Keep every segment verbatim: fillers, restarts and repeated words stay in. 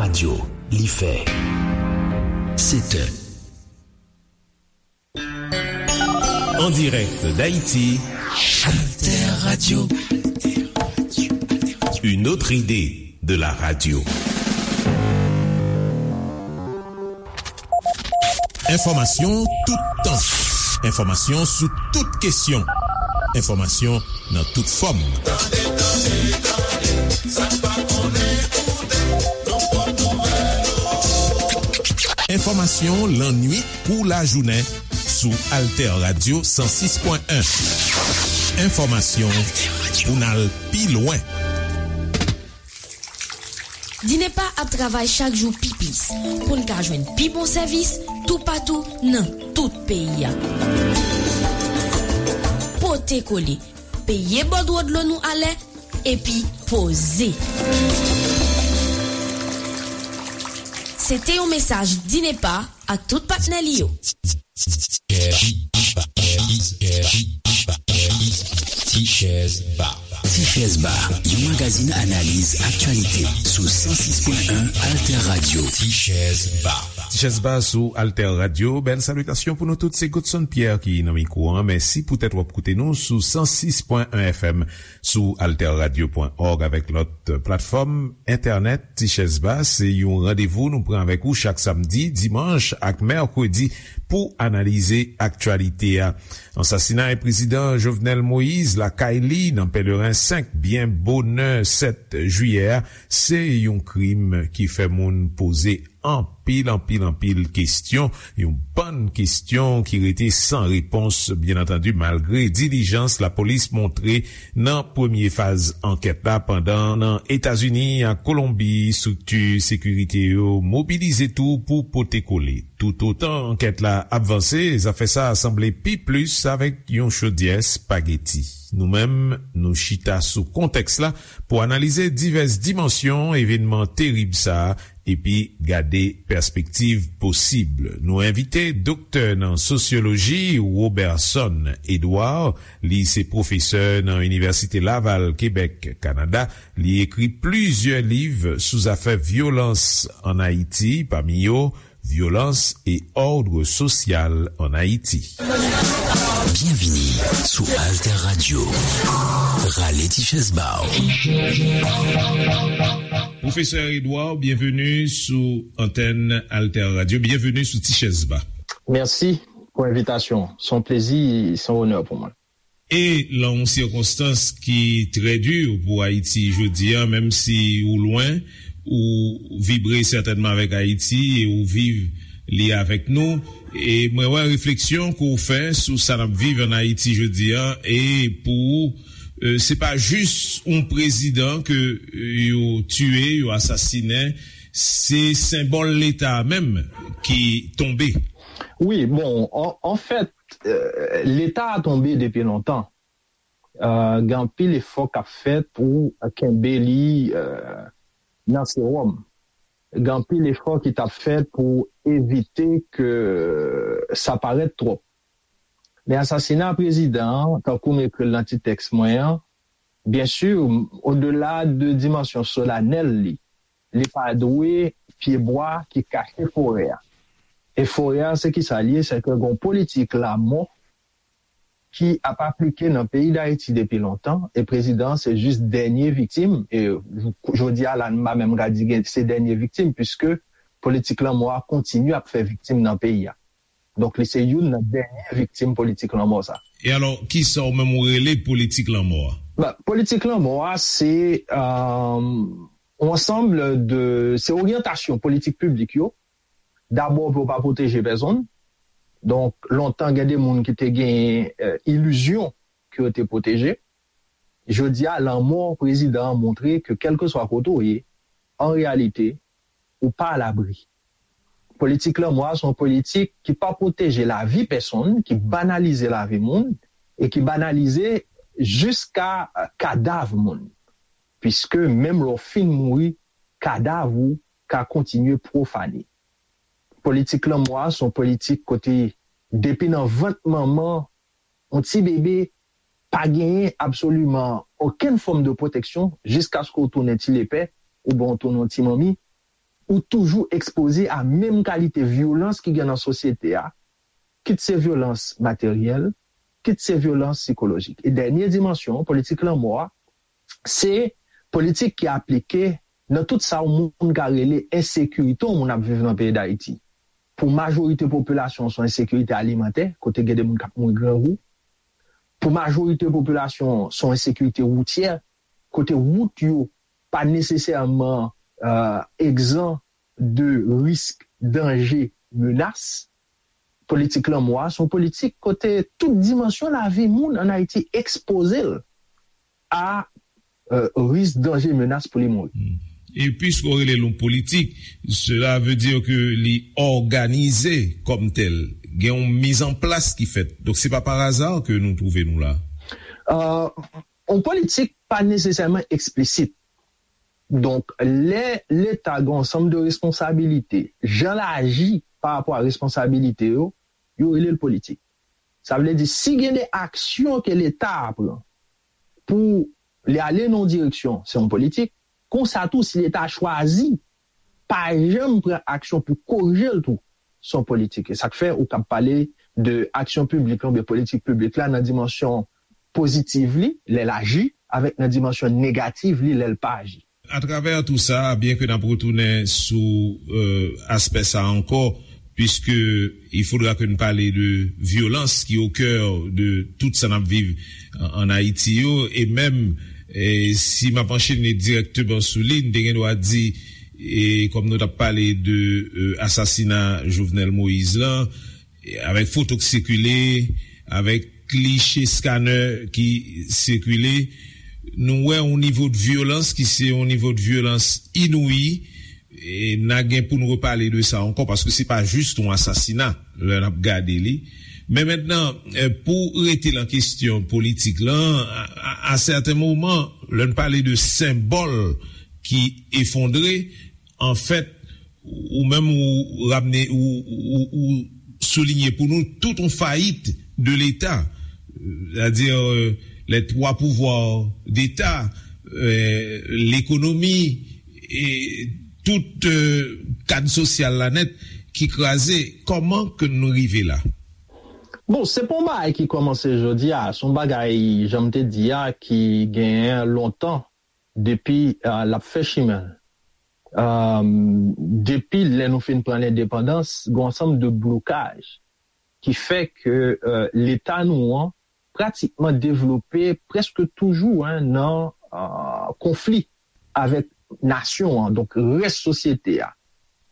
Radyo, li fè sèt è. En direct d'Haïti, Alter Radio. Une autre idée de la radio. Enfòmasyon tout tan. Enfòmasyon sou tout kesyon. Enfòmasyon nan tout fòm. Tande, tande, tande, sa n pa konnen, koute, nou pran nouvèl ou. Enfòmasyon lannuit kou lajounen sou Alter Radio san sis pwen en. Enfòmasyon pou n al pi lwen. Dinepa ap travay chak jou pi plis pou n ka jwenn pi bon sèvis toupatou nan tout peyi a. Pote kole, peye bòdwo dlo nou alè, epi poze. Se te yon mesaj Dinepa ak tout patnè li yo. Ti Chèz Ba. Ti Chèz Ba, yon magazin analiz aktyalite sou san sis pwen en Alter Radio. Ti Chèz Ba. Ti Chèz Ba sou Alter Radio. Bèl salitasyon pou nou tout. Se Godson Pierre ki nan mikwo an. Mèsi poutèt w ap koute nou sou san sis pwen en F M, sou alter radio pwen org avèk lòt platfòm entènèt. Ti Chèz Ba se yon randevou nou pran avèk ou chak samdi, dimanch ak mèkredi pou analize aktyalite a. Ansasinay prezidan Jovenel Moïse lakay li nan Pèleren senk byen bonè sèt jiyè a, se yon krim ki fè moun poze anpil, anpil, anpil kesyon, yon bann kesyon ki rete san repons, byen antandi, malgre dilijans lapolis montre nan premye faz ankèt la, pandan nan Etazini ak Kolonbi, estrikti sekirite yo mobilize tou pou pote kole. Toutotan ankèt la ap vanse, zafè sa a sanble pi plis avèk yon chodyè espageti. Nou menm, nou chita sou kontèks la pou analize divès dimansyon evènman terib sa a epi gade pèspektiv posib. Nou envite doktè nan sosyoloji Roberson Edouard. Li se pwofesè nan Inivèsite Laval, Kebèk, Kanada. Li ekri plizyè liv sou zafè vyolans ann Ayiti, pami yo Violence et ordre social en Haïti. Byenvini sou Alter Radio. Rale ti chèz ba w. Pwofesè Edouard, byenveni sou antèn Alter Radio. Byenveni sou Ti Chèz Ba. Mèsi pou envitasyon. Se yon plezi, se yon onè pou mwen. E lan yon sikonstans ki trè di pou Ayiti jodi a, menm si ou lwen, ou vibre sètènman avèk Ayiti e ou viv li avèk nou. E mwen wè refleksyon ke w fè sou sa n ap viv ann Ayiti jodi a, e pou ou, e, se pa jis yon prezidan ke, e, yo tiye, yo asasinen, se senbòl Leta a menm ki tonbe. Wi, bon, an, anfèt, e, Leta a tonbe depi lontan. E, gen anpil efò k ap fèt pou kenbe li, e, nan sewòm. Gen anpil efò ki t ap fèt pou evite ke sa parèt twòp. Men asasina prezidan an, tankou m ekri l nan ti tèks mwen an, byen si, odela de dimansyon solanèl li, li pa dwe pyebwa ki kache forè a. E forè a, se kisa l ye? Se ke gon politik lamò ki ap aplike nan peyi Dayiti depi lontan, e prezidan an se jis dènye viktim, e jodi a la, m pa menm ka di gen, se dènye viktim, piske politik lanmò a kontinye ap fè viktim nan peyi a. Donk, li se youn nan dènye viktim politik lanmò sa. E alò, kisa w menm ou rele politik lanmò a? Bon, politik lanmò a, se, e, yon ansanm de, se oryantasyon politik piblik yo. Dabò, pou yo pa pwoteje pèsonn. Donk, lontan, gen de moun ki te gen, e, ilizyon ke yo te pwoteje. Jodi a, lanmò prezidan an montre ke kèlkeswa kote w ye, an reyalite, ou pa alabri. Politik lanmò a se yon politik ki pa pwoteje lavi pèsonn, ki banalize lavi moun, e ki banalize jiska, e, kadav moun. Piske menm lè w fin mouri, kadav ou ka kontinye pwofane. Politik lanmò a se yon politik kote, depi nan vant manman, yon ti bebe pa genyen absoliman okenn fòm de pwoteksyon jiskaske w tounen ti lepè oubyen w tounen yon ti manmi. ou toujou ekspoze a menm kalite vyolans ki gen nan sosyete a, kit se vyolans materyèl, kit se vyolans sikolojik. E dènye dimansyon, politik lanmò a, se politik ki aplike nan tout sa yon moun ka rele ensekirite yon moun ap viv nan peyi Dayiti. Pou majorite popilasyon, se yon ensekirite alimantè, kote gen de moun k ap mouri grangou. Pou majorite popilasyon, se yon ensekirite woutyè, kote wout yo pa nesesèman egzan de risk, danje, menas. Politik lanmò a se yon politik kote tout dimansyon lavi moun ann Ayiti ekspoze l a risk, danje, menas pou li mouri. E piske w rele l yon politik, cela veut dire que li òganize kòm tèl. Gen yon mizanplas ki fèt. Donk, se pa pa aza ke nou twouve nou la. Yon politik pa nesesèman eksplisit. Donk, lè Leta gen yon sanm de responsabilite, jan l aji pa rapò a responsabilite yo, yo rele l politik. Sa vle di, si gen de aksyon ke Leta a pran pou li ale nan yon direksyon, se yon politik. Konsa tou, si Leta a chwazi pa janm pran aksyon pou korije l tou, se yon politik. E sa k fè ou kab pale de aksyon piblik la oubyen politik piblik la nan dimansyon pozitiv li, lè l aji, avèk nan dimansyon negativ li, lè l pa aji. Atravè tou sa, byen ke n ap retounen sou aspè sa ankò, puisque il faudra que n pale de vyolans ki au cœur de tout sa n ap viv an Ayiti yo, e menm si m ap anchene dirèkteman sou li, n te gen dwa di, e kòm nou t ap pale de asasina Jovenel Moïse lan, avèk foto k sikile, avèk kliche scanner ki sikile, nou wè yon nivo de vyolans ki se yon nivo de vyolans inouyi, e n a gen pou n repale de sa ankò, paske se pa jis yon asasina lè n ap gade li. Men mentnan, pou rete nan kesyon politik lan, a sèten moman, lè n pale de senbòl ki efondre, anfèt, ou menm ou ramne ou, ou, ou soulinye pou nou tout yon fayit de Leta, c'est-à-dire euh, les trois pouvoirs d'État, euh, l'économie et tout euh, kad sosyal la nèt ki kraze. Kòman ke nou rive la? Bon, se pa yon bagay ki kòmanse jodi a, se yon bagay, jan m te di a, ki genyen lontan depi l ap fè chimen l. Depi lè nou fin pran lendepandans, gen yon ansanm de blokaj ki fè ke Leta nou an pratikman devlope prèske toujou nan konfli avèk nasyon an, donk rès sosyete a.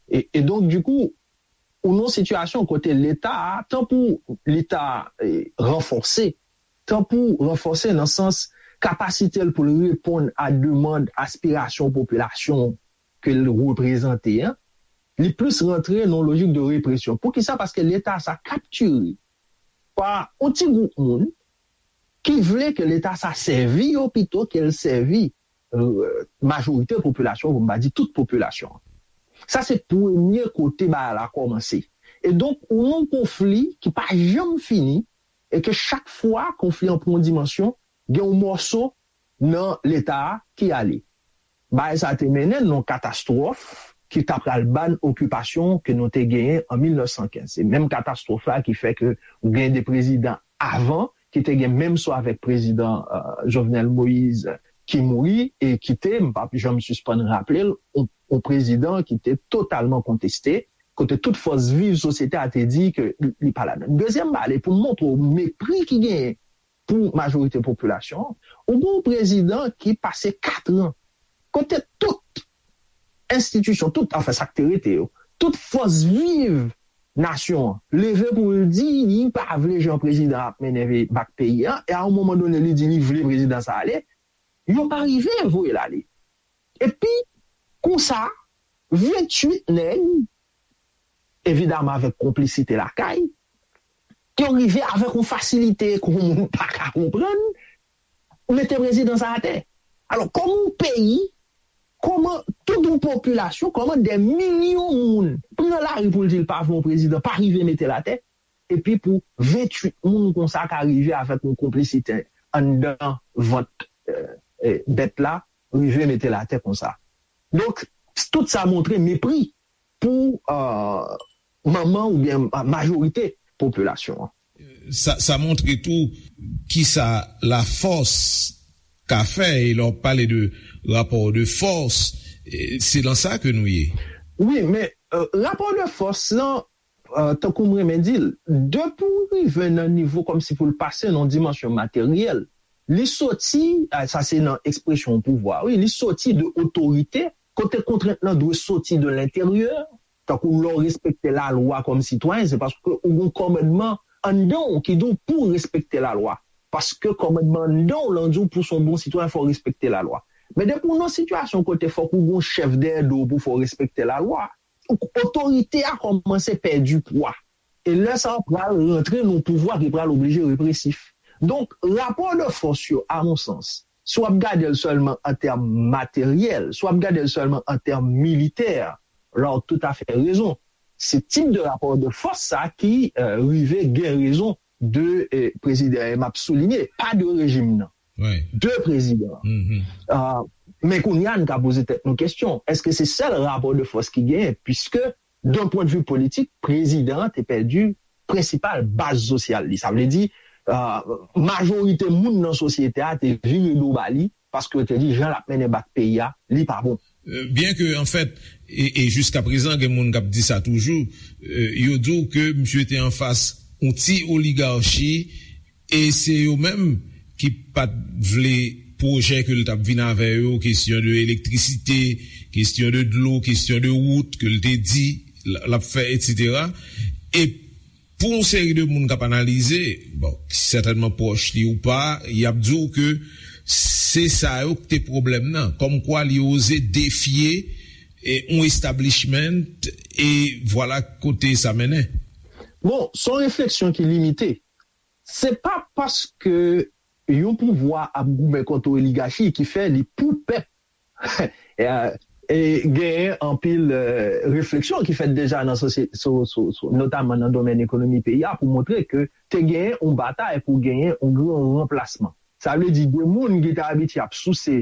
E, e donk, dikou, ou nan yon sitiyasyon kote Leta a, tan pou li ta ranfòse, tan pou ranfòse nan sans kapasite l pou l reponn a demann, aspirasyon popilasyon ke l reprezante an, li plis rantre nan yon lojik de represyon. Poukisa? Paske Leta sa kaptire pa yon ti gwoup moun ki vle ke Leta sa sèvi yo pito ke l sèvi majorite popilasyon, pou m pa di tout popilasyon. Sa se premye kote bagay la kòmanse. E donk, ou nan yon konfli ki pa janm fini, e ke chak fwa konfli an pran yon dimansyon, gen yon mòso nan Leta a ki ale. Bagay sa te mennen n nan yon katastwòf ki ta pral ba n okipasyon ke nou te genyen an mil nèf san kenz. Se menm katastwòf la ki fè ke ou gen de prezidan avan ki te gen menm sò avèk prezidan Jovenel Moïse ki mouri e ki te, m p ap janm sispann raple l, yon prezidan ki te totalman konteste, kote tout fòs viv sosyete a te di ke li pa ladan. Dezyèm bagay, pou m montre w mepri ki genyen pou majorite popilasyon an, ou gen yon prezidan ki pase kat an kote tout enstitisyon, tout, anfen, sa k te rete yo, tout fòs viv nasyon an leve pou l di li pa vle jan prezidan ap mennen bak peyi a, e a yon moman done li di li vle prezidan sa ale, yo pa rive voye l ale. Epi, konsa, venntuit nèg, evidaman avèk konplisite lakay, yo rive avèk yon fasilite ke yon moun pa ka konprann, mete prezidan sa atè. Alò, kòman yon peyi, kòman tout yon popilasyon, kòman dè milyon moun pran lari pou l di l pa vle yon prezidan, pa rive mete l atè, epi pou venntuit moun konsa ka rive avèk yon konplisite anndan vant bèt la, rive mete l atè konsa. Donk, Tout sa montre mepri pou uh, manman oubyen majorite popilasyon an. Sa, sa montre tou kisa lafòs ka fè, e lè w pale de rapò de fòs, se nan sa ke nou ye. Wi, men uh, rapò de fòs lan, uh, tankou m renmen di l, depi w rive nan nivo kòmsi pou l pase nan dimansyon materyèl, li soti, sa se nan ekspresyon pouvwa, wi, li soti de otorite, kote kontrent lan dwe soti de lenteryè, tankou lè w respekte lalwa kòm sitwayen, se paske ou gen kòmandman anndan w ki di w pou w respekte lalwa. Paske kòmandman anndan w lan di w pou w se yon bon sitwayen, fò w respekte lalwa. Men depi w nan sitiyasyon kote fòk ou gen yon chèf dèyè do w pou fè w respekte lalwa, otorite a kòmanse pèdi pwa. E lè sa a pral rantre nan yon pouvwa ki pral oblije represif. Donk, rapò de fòs yo, a mon sans, si w ap gade l sèlman an tèm materyèl, si w ap gade l sèlman an tèm militè, la w toutafè rezon. Se tip de rapò de fòs sa ki rive gen rezon de prezidan e m ap soulinye, pa de rejim nan, de prezidan an. Men kounye a n ka poze tèt nou kesyon, èske se sèl rapò de fòs ki genyen? Piske, d'un pwen de vi politik, prezidan an te pèdi prensipal baz sosyal li. Sa vle di, majorite moun nan sosyete a te vire do ba li, paske yo te di jan l ap mennen bak peyi a, li pa bon. Byen ke, anfèt, e, e jiska prezan, gen moun k ap di sa toujou, yo di w ke misye te anfas yon ti oligachi, e se yo menm ki pa t vle pwojè ke l t ap vin avè yo, kesyon de elektrisite, kesyon de dlo, kesyon de wout ke l te di l ap fè, etsetera. E pou yon seri de moun k ap analize, bon, ki sètènman pwòch li ou pa, y ap di w ke se sa yo k te pwoblèm nan. Kòmkwa li oze defye yon establishment, e vwala kote sa mennen. Bon, se yon refleksyon ki limite. Se pa paske yon pouvwa ap goumen kont yon oligachi ki fè li pou pèp. E genyen anpil refleksyon ki fèt deja nan sosyete, notaman nan domèn ekonomi peyi a, pou montre ke te genyen yon batay pou genyen yon gran ranplasman. Sa vle di de moun ki te abitye ap souse,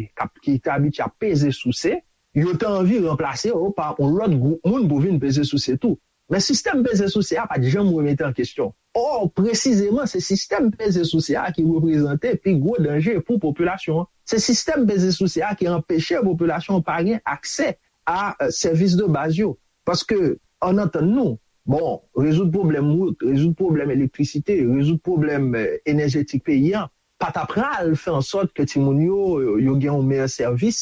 ki te abitye ap peze souse, yo te anvi ranplase yo pa yon lòt gwoup moun pou vin peze souse tou. Men sistèm peze souse a pa t janm remete an kesyon. Ò, presizeman, se sistèm peze souse a ki reprezante pi gwo danje pou popilasyon an. Se sistèm peze souse a ki anpeche popilasyon an pa gen aksè a sèvis de baz yo. Paske, ann antann nou, bon, rezoud pwoblèm wout, rezoud pwoblèm elektrisite, rezoud pwoblèm enèjetik peyi a, pa ta pral fè an sòt ke timoun yo, yo gen yon meyè sèvis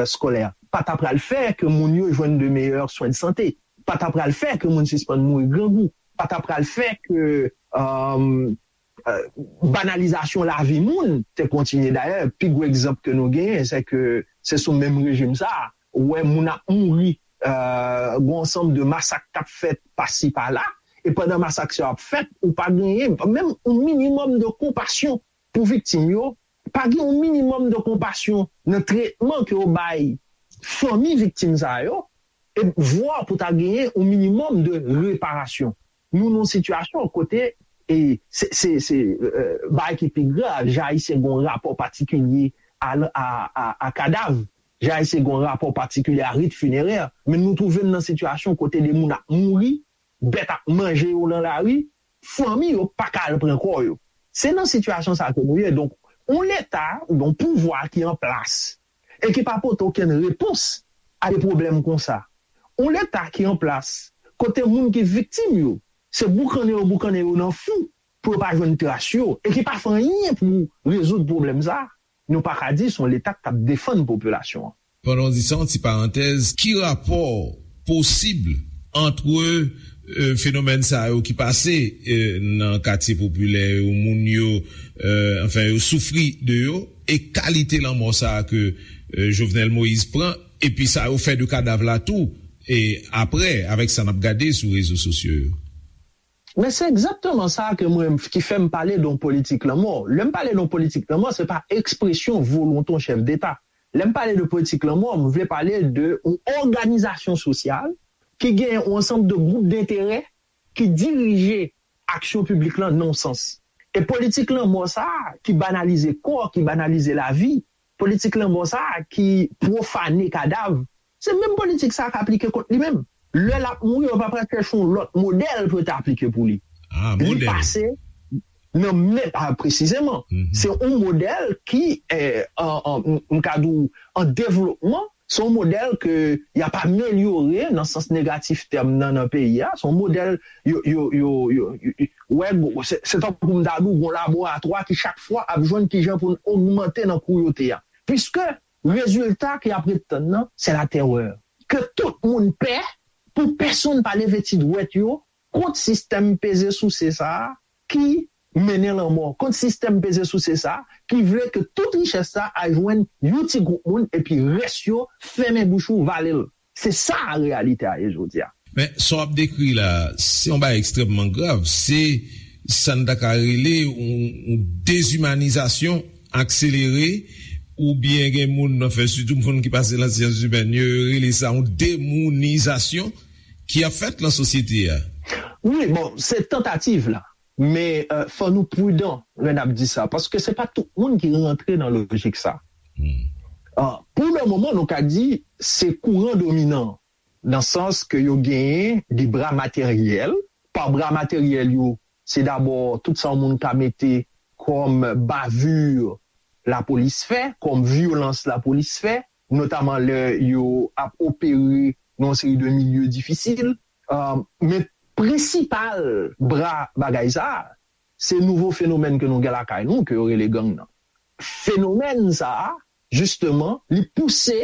eskolè, pa ta pral fè ke moun yo jwenn de meyè swen de sante, pa ta pral fè ke moun sispann mouri grangou, pa ta pral fè ke banalizasyon lavi moun te kontinye. Dayè, pi gwo egzanp ke nou genyen, se ke se sou menm rejim sa a, ou wè moun ap mouri, gen yon ansanm de masak k ap fèt pasi pala, e pandan masak sa yo ap fèt, ou pa genyen menm yon minimòm de konpasyon pou viktim yo, pa gen yon minimòm de konpasyon nan tretman ke yo bay fanmi viktim sa yo, e vwa pou ta genyen yon minimòm de reparasyon. Nou nan yon sitiyasyon kote, e se, se, se bagay ki pi grav, jan Ayisyen gen yon rapò patikilye a, a, a, a kadav, jan Ayisyen gen yon rapò patikilye a rit finerè, men nou twouve n nan sitiyasyon kote de moun ap mouri, bèt ap manje yo nan lari, fanmi yo pa ka al pran kò yo. Se nan sitiyasyon sa ke nou ye. Donk, yon Leta, yon pouvwa ki an plas e ki pa pote okenn repons a de pwoblèm konsa. Yon Leta ki an plas kote moun ki viktim yo, se boukannen yo boukannen yo nan fou pou yo pa jwenn tras yo e ki pa fè anyen pou rezoud pwoblèm sa, nou pa ka di se yon Leta k ap defann popilasyon an. Pandan w di sa, yon ti parantèz, ki rapò posib ant fenomèn sa yo ki pase nan katye popilè yo, moun yo, anfen, yo soufri de yo, e kalite lanmò sa a ke Jovenel Moïse pran, epi sa yo fè de kadav la tou, e apre, avèk sa n ap gade sou rezo sosyo yo? Men se egzakteman sa ke mwen, ki fè m pale de yon politik lanmò. Lè m pale de yon politik lanmò, se pa ekspresyon volonte yon chèf deta. Lè m pale de politik lanmò, m vle pale de yon òganizasyon sosyal ki gen yon ansanm de gwoup denterè ki dirije aksyon piblik lan nan yon sans. E politik lanmò sa a ki banalize kò, ki banalize lavi, politik lanmò sa a ki pwofane kadav, Se menm politik sa a k aplike kont li menm. Lè l ap mouri, yo pa pral chèche yon lòt modèl pou yo te aplike pou li. Ah, Li modèl. pase nan men, ah, presizeman. Mhm. Se yon modèl ki, eh, an, an, m ka di w, an devlopman, se yon modèl ke y ap amelyore nan sans negatif tèm nan nan peyi a. Se yon modèl yo, yo, yo, yo, yo, yo wè, se, se tankou m ta di w, yon laboratwa ki chak fwa ap jwenn kijan pou n ogmante nan kou yo te a. Piske rezilta ke y ap ret tann nan, se latèrè. Ke tout moun pè, pou pèsonn pa leve ti dwèt yo kont sistèm peze souse sa a ki mennen lanmò, kont sistèm peze souse sa a ki vle ke tout richès sa a al jwenn yon ti gwoup moun epi rès yo fèmen bouch ou, vale l. Se sa reyalite a ye jodi a. Men sa w ap dekri la, se yon bagay ekstrèmman grav. Se sa n ta ka rele yon, yon dezimanizasyon akselere, oubyen gen moun nan fè, sitou moun ki pase nan syans imèn, yo rele sa yon demounizasyon ki ap fèt nan sosyete a. Wi, bon, se tantativ la. Men euh, fò nou pridan lè n ap di sa, paske se pa tout moun ki rantre nan lojik sa. Hmm. Ah, pou le moman, nou ka di se kouran dominan, nan sans ke yo genyen de bra materyèl. Pa bra materyèl yo, se dabò tout sa yon moun ka mete kòm bavure lapolis fè, kòm vyolans lapolis fè, notaman lè yo ap opere nan yon seri de milye difisil. Ah, men prensipal bra bagay sa a, se nouvo fenomèn ke nou gen lakay nou, ke yo rele gang nan. Fenomèn sa a, jisteman, li pouse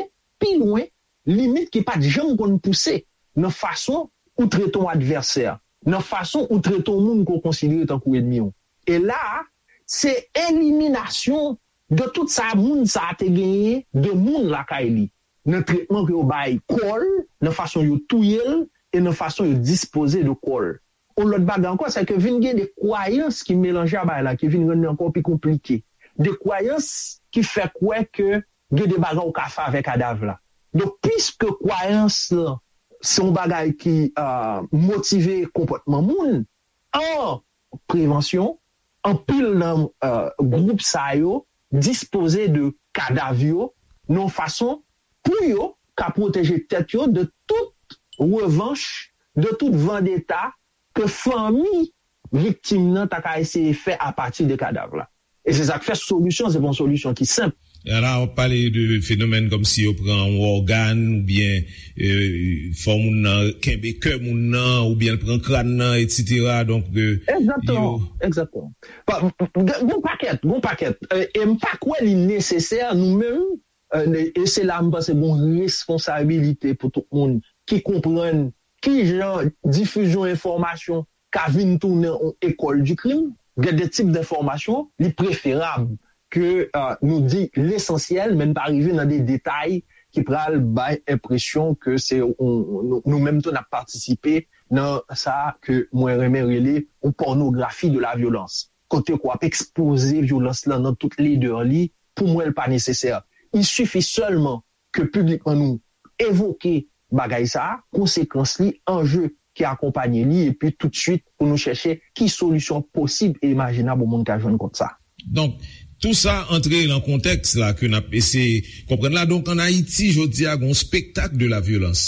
pi lwen limit ki pa t janm konn pouse nan fason ou trete yon advèsè, nan fason ou trete yon moun ke w konsidere tankou ènmi w. E la a, se eliminasyon de tout sa moun sa a te genyen de moun lakay li, nan tretman ke yo bay kò l, nan fason yo touye l, e nan fason yo dispoze de kò l. Yon lòt bagay ankò, se ke vin gen de kwayans ki melanje a bagay la, ki vin rann li ankò pi konplike. De kwayans ki fè kwè ke gen de bagay ou ka fè avèk kadav la. Donk, piske kwayans lan se yon bagay ki euh, motive konpòtman moun, an prevansyon, anpil nan euh, gwoup sa yo dispoze de kadav yo nan yon fason pou yo ka pwoteje tèt yo de tout revanch, de tout vandeta ke fanmi viktim nan ta ka eseye fè apati de kadav la. E se sa k fè solisyon, se pa yon solisyon ki senp. E la, w ap pale de fenomèn kòmsi yo pran yon ògàn oubyen euh, fè moun nan kenbe kè moun nan oubyen l pran kràn nan, etsetera. Donk, euh, Egzakteman, yo- egzakteman. Pa- Gon pakèt, gon pakèt. E e m pa kwè li nesesè nou menm, euh, e se la m panse gon responsabilite pou tout moun ki konprann ki jan difizyon enfòmasyon ka vin tounen yon ekòl di krim. Gen de tip denfòmasyon, li preferab ke euh, nou di lesansyèl, men n pa rive nan de detay ki pral bay enpresyon ke se yon- nou nou menm tou n ap patisipe nan sa ke mwen renmen rele yon pònografi de la vyolans. Kote ke w ap ekspoze vyolans lan nan tout ledè li, pou mwen, l pa nesesè. Il sifi sèlman ke piblikman nou evoke bagay sa a, konsekans li, anje ki akonpanye li, epi toutswit pou nou chèche ki solisyon posib e imajinab yon moun ka jwenn kont sa. Donk, tou sa antre nan kontèks la ke n ap eseye konprann la. Donk, ann Ayiti, jodi a, gen yon spektak de la vyolans.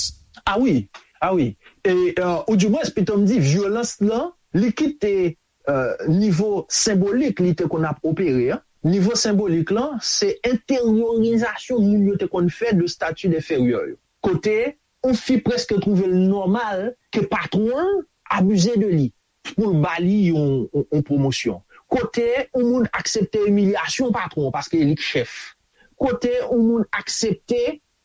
Ah wi, ah wi. E, euh, ou di mwens, pito m di, vyolans lan, li kite euh, nivo senbolik li te konn ap opere an. Nivo senbolik lan, se enteryorizasyon moun yo te konn fè de stati enferyè yo. Kote yon fi prèske twouve l nòmal ke patwon l abize de li pou l ba li yon, yon, yon pwomosyon. Kote yon moun aksepte imilyasyon patwon paske li k chèf. Kote yon moun aksepte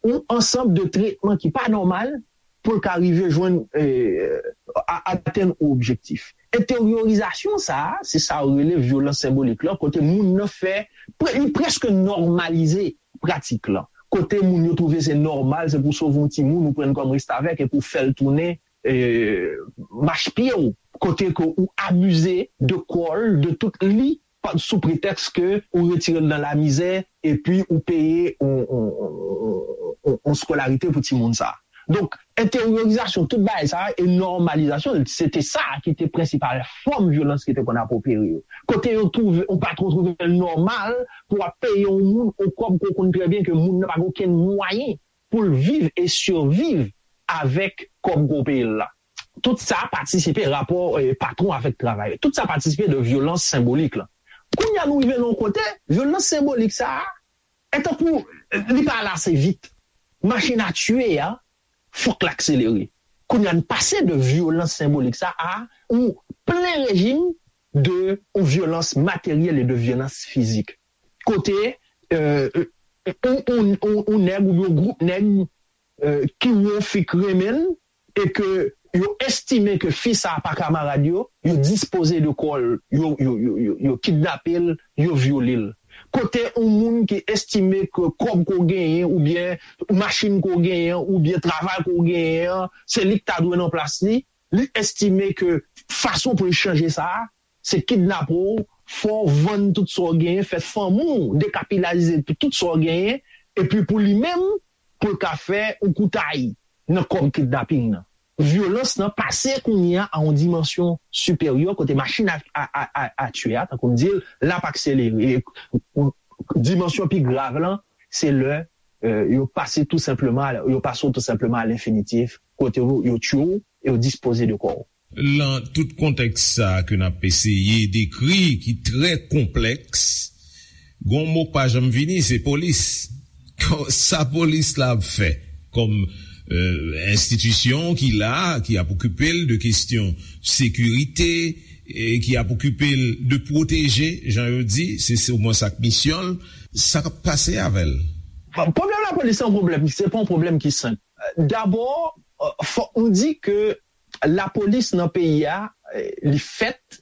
yon ansanm de tretman ki pa nòmal pou l ka rive jwenn eh, a- atenn yon objektif. Enteryorizasyon sa a, se sa yo rele vyolans senbolik lan, kote moun nan fè, pre- li prèske nòmalize pratik lan. Kote moun yo twouve se nòmal, se pou sove yon timoun ou pran l kòm restavèk epi w fè l tounen eh, mach pye w. Kote ke ou abize de kò l, de tout li, pa- sou pretèks ke ou retire l nan lamizè epi ou peye yon, yon, yon, yon, yon skolarite pou timoun sa. Donk, enteryorizasyon tout bagay sa e nòmalizasyon l, se te sa ki te prensipal fòm vyolans ki te konn ap opere yo. Kote yo twouve, yon patwon twouve l nòmal pou w ap peye yon moun yon kòb ke w konn trè byen ke moun nan pa gen okenn mwayen pou l viv e siviv avèk kòb gwo peyi l la. Tout sa patisipe, rapò eh, patwon avèk travayè. Tout sa patisipe de vyolans senbolik la. Kounye a nou rive nan yon kote, vyolans senbolik sa a, e tankou eh, li pa ale ase vit. Machin a tiye a, fòk l akselere. Kounye a n pase de vyolans senbolik sa a, ou plen rejim de ou vyolans materyèl e de vyolans fizik. Kote eh, ou, ou, ou, ou nèg oubyen yon gwoup nèg eh, ki wè yon fi k renmen l e ke yo estime ke fi sa a pa kamarad yo, yo dispoze de kò l, yo, yo, yo, yo, yo kidnape l, yo vyole l. Kote yon moun ki estime ke kòb ke w genyen oubyen machin ke w genyen oubyen travay ke w genyen an, se li k ta dwe nan plas li, li estime ke fason pou l chanje sa a, se kidnape w, fè w vann tout sa w genyen, fè fanmi w dekapilaze tout sa w genyen, epi pou li menm, pou l ka fè yon koutay nan kòb kidnaping nan. Vyolans nan pase kounye a a yon dimansyon siperyè kote machin a, a, a, a, a tiye a, tankou m di l, l ap akselere. E, dimansyon pi grav lan, se lè eh, yo pase tou senpleman, yo pase w tou senpleman a lenfinitif, kote yo, yo tiye w e yo dispoze de kò w. Lan tout kontèks sa a ke n ap eseye dekri, ki trè konplèks, gon mo k pa janm vini, se polis. Sa polis la ap fè kòm enstitisyon ki la, ki ap okipe l de kesyon sekirite, e ki ap okipe l de pwoteje, jan yo di, se se omwen sa k misyon l, sa k ap pase avè l? Pwoblèm lapolis se yon pwoblèm, se pa yon pwoblèm ki senp. Dabò, fòk nou di ke lapolis nan peyi a, li fèt,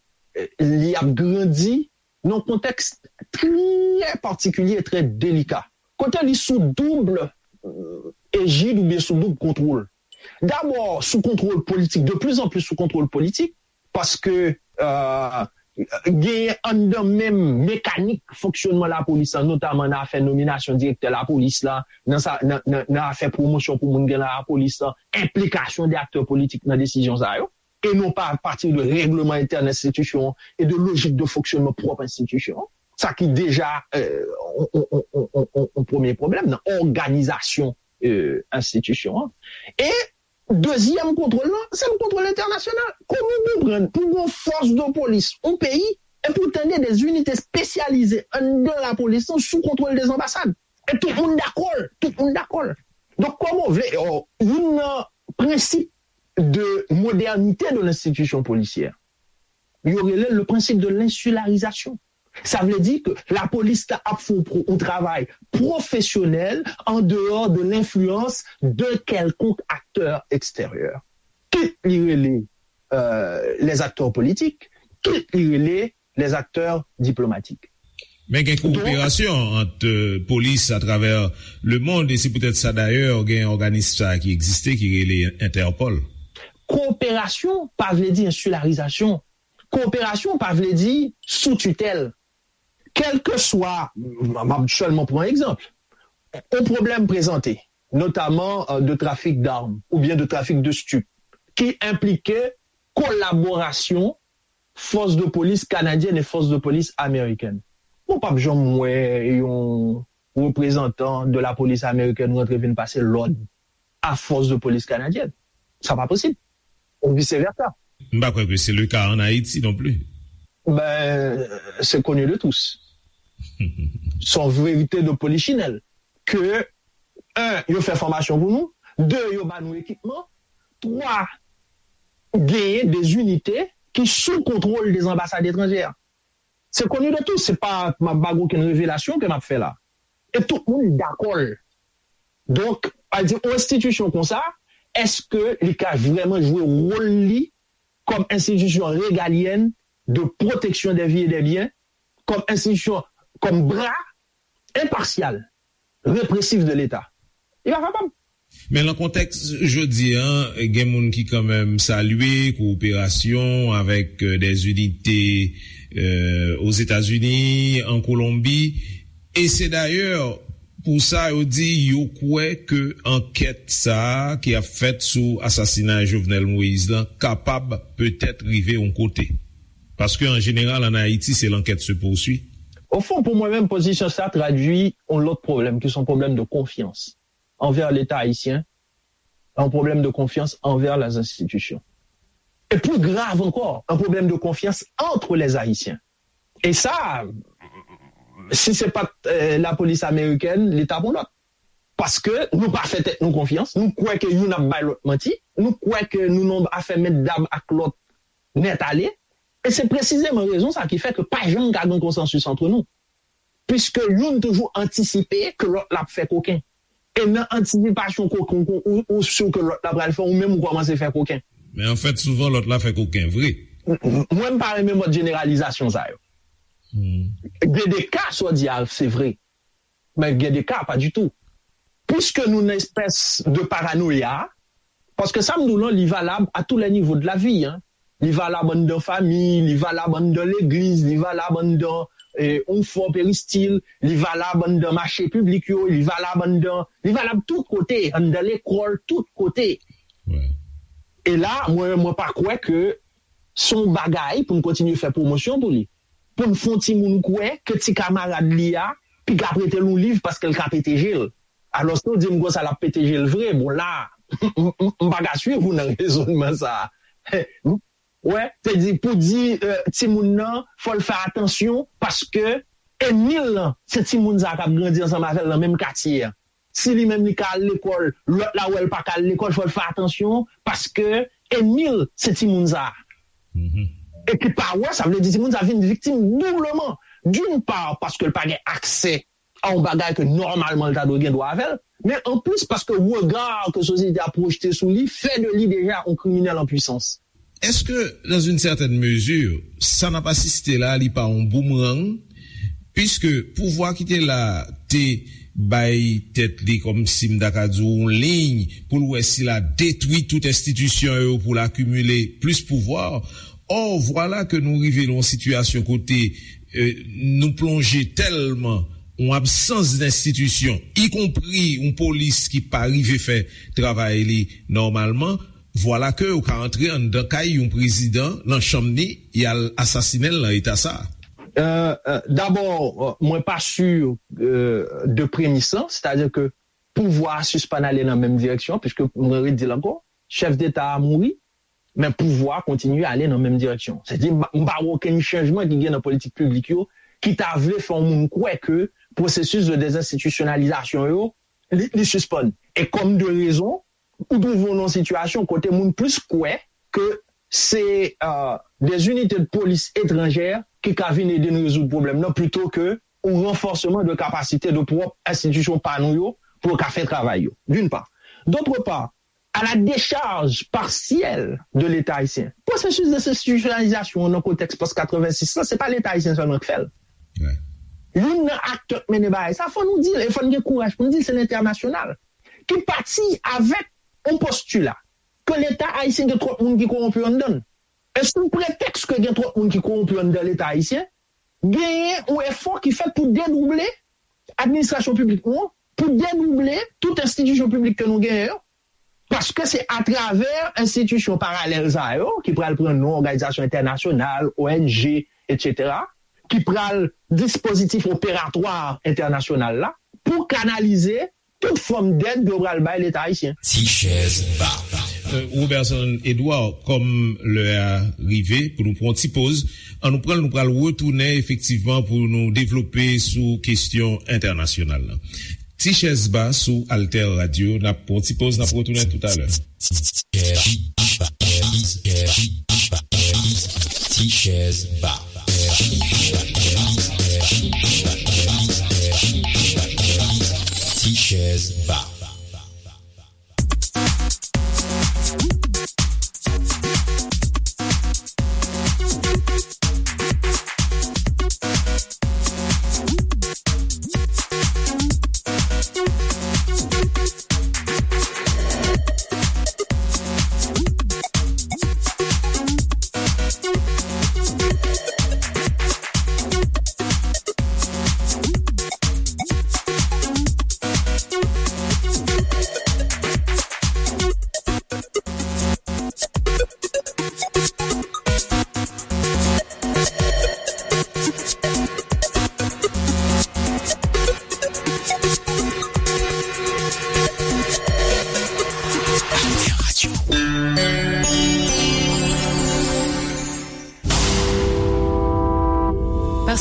li ap grandi nan yon kontèks trè patikilye e trè delika. Kote li sou doub ejid oubyen sou doub kontwòl. Dabò, sou kontwòl politik, de plus en plus sou kontwòl politik, paske genyen anndan menm mekanik fonksyònman lapolis la, notaman nan afè nominasyon direktè lapolis la, nan sa, nan, nan, nan afè pwomosyon pou moun gen nan lapolis la, enplikasyon de aktè politik nan desizyon sa yo, e non pa apati de règleman entèn enstitisyon an e de lojik de fonksyònman pwòp enstitisyon an. Sa ki deja yon premye pwoblèm nan òganizasyon enstitisyon an. E dezyèm kontwòl lan, se yon kontwòl entènasyonal. Kòman w konprann pou yon fòs de polis, yon peyi, epi w tande de zinite espesyalize anndan lapolis lan sou kontwòl de zanbasad? E tout moun dakò l, tout moun dakò l. Donk, kòman w vle, youn nan prensip de modernite de lenstitisyon polisyè, yo rele l le principe de l'insularisation. Sa vle di ke lapolis la ap fè yon travay pwofesyonèl an dehors de l'influence de quelconque acteur extérieur. Kit li rele les acteurs politiques, kit li rele les acteurs diplomatiques. Men gen koperasyon ant polis atravè lemond, e se poutèt sa dayè gen òganis sa ki egziste ki rele Entèpòl. Koperasyon pa vle di ensilarizasyon. Koperasyon pa vle di sou titèl. Kèlkeswa, m ap sèlman pran egzanp, yon pwoblèm prezante, notaman de trafik dam oubyen de trafik de stip, ki enplike kolaborasyon fòs de polis kanadyèn e fòs de polis amerikèn. Mwen p ap janm wè yon reprezantan de lapolis amerikèn rantre vin pase lòd a fòs de polis kanadyèn. Sa pa posib. Ou vice versa. M pa kwè ke se le ka an Ayiti non pli. Ben, c'est connu de tous. Se yon verite de polichinèl ke, un, yo fè fòmasyon pou nou, de, yo ba nou ekipman, twa, genyen de zinite ki sou kontwòl de zanbasad etranjè. Se connu de tous, se pa, m ap ba w okenn revelasyon ke m ap fè la. E tout moun dakò l. Donk, a di, yon enstitisyon konsa, èske li ka vrèman jwe wòl li kòm enstitisyon regalyèn de pwoteksyon dè vi e dè byen, kòm enstitisyon, kòm bra enpasyal, represif de Leta? Li pa kapab. Men nan kontèks jodi a, gen moun ki kanmenm salye kowoperasyon avèk de zinite Ozetazini, an Kolonbi, e se dayè pou sa yo di yo kwè ke ankèt sa a ki ap fèt sou asasinay Jovenel Moïse lan kapab petèt rive yon kote. Paske an jeneral an Ayiti se l'enquête se poursuit. Ofon, pou mwen menm, pozisyon sa tradui yon lòt pwoblèm ki se yon pwoblèm de konfyans. envers l'État haïtien, un problème de confiance envers les institutions. Et plus grave encore, un problème de confiance entre les Haïtiens. Et ça, si c'est pas euh, la police américaine, l'État pour l'autre. Paske nou pa fè tèt nou konfyans, nou kwè ke youn ap bay lòt manti, nou kwè ke nou nan afè mèt dam ak lòt nèt ale, e se presizeman rezon sa ki fè ke pa janm ka gen konsansis antre nou. Piske youn toujou antisipe ke lòt la ap fè koken. E nan antisipasyon koken ou, ou, ou si ke lòt la pral fè, ou menm ou kòmanse fè koken. Men anfèt, souvan lòt la fè koken, vre. M- m- Mwen, m pa renmen mòd jeneralizasyon sa yo. Gen de ka, sa w di a, se vre. Men gen de ka, pa ditou. Piske nou nan espès de paranoya, paske sa m di w lan, li valab à tous les niveaux de la vie, hein. Li valab anndan fanmi, li valab anndan legliz, li valab anndan eh, yon fò peristil, li valab anndan mache piblik yo, li valab anndan, li valab tout kote, anndan lekòl, tout kote. E la, mwen, mwen pa kwè ke se yon bagay pou n kontinye fè pwomosyon pou li. Pou n fè yon timoun kwè ke ti kamarad li a piga prete l yon liv paske l ka pete je l. Alòske w di m konsa l ap pete je l vre. Bon, la, m pa ka swiv ou nan rezònman sa a. Wè, se di pou di eh, timoun nan, fò l fè atansyon paske enmi l lan, se timoun sa a k ap grandi ansanm avè l nan menm katye a. Si li menm li ka al lekòl, lòt la wè l pa ka al lekòl, fò l fè atansyon, paske enmi l se timoun sa a. E ki pa wè, sa vle di timoun sa a vin viktim doubleman. D'une part, paske l pa gen aksè a yon bagay ke nòmalman l ta dwe gen dwa avè l, men anplis paske rega ke sosyete a pwojte sou li fè de li deja yon kriminèl an pwisans. Èske, dans une certaine mesure, sa n ap asiste la, li pa yon boomerang? Piske pouvwa ki te la te bay tèt li kòmsi m ta ka di w yon liy pou l wè si l a detwi tout enstitisyon yo pou l akimile plis pouvwa. Or, vwala ke nou rive nan yon sitiyasyon kote eh, nou plonje tèlman yon absans d enstitisyon, ikonpri yon polis ki pa rive fè travay li nòmalman, vwala ke ou ka antre anndan kay yon prezidan, nan chanm ni, y al asasinen l nan eta sa a. Euh, euh, D'abord, euh, mwen pa sur euh, de premis lan, c'est-à-dire que pouvwa a sispann ale nan menm direksyon, piske mwen redi l ankò, chèf deta a mouri, men pouvwa a kontinye ale nan menm direksyon. Se di, m pa wè okenn chanjman ki gen nan politik piblik yo ki ta vle fè yon moun kwè ke pwosesis de dezenstitisyonalizasyon yo, li, li sispann. E kòm de rezon, ou twouve w nan yon sitiyasyon kote moun plis kwè ke se euh, des unités de police étrangères ki ka vin ede n rezoud pwoblèm nan plito ke yon ranfòseman de kapasite de pwòp enstitisyon pa nou yo pou yo ka fè travay yo, d'une part. D'autre part, à la décharge partielle de l'État haïtien. Pwosesis dezenstitisyonalizasyon an nan kontèks pòs katrevensis lan, se pa Leta ayisyen sèlman k fè l. Youn nan aktè k mennen bagay sa, fò nou di l, e fò n gen kouraj pou n di l, se lentènasyonal. Ki pati avèk yon postila ke Leta ayisyen gen twòp moun ki kowonpi anndan l. E sou pretèks ke gen twòp moun ki kowonpi anndan Leta ayisyen, genyen yon efò ki fèt pou dedouble administrasyon piblik nou an, pou dedouble tout enstitisyon piblik ke nou genyen yo, paske se atravè enstitisyon paralèl sa yo, ki pral pran non òganizasyon entènasyonal, O N G, etsetera, ki pral dispozitif operatwa entènasyonal la, pou kanalize tout fòm dèd yo pral bay Leta ayisyen. Ti chèz ba. Euh, Roberson Edouard, kòm lè a rive pou nou pran yon ti poz, ann nou pran l, nou pral retounen efektivman pou nou devlope sou kesyon entènasyonal la. Ti chèz ba sou Alter Radio, n ap pran yon ti poz, n ap retounen toutalè. Ti chèz ba. Ti chèz ba.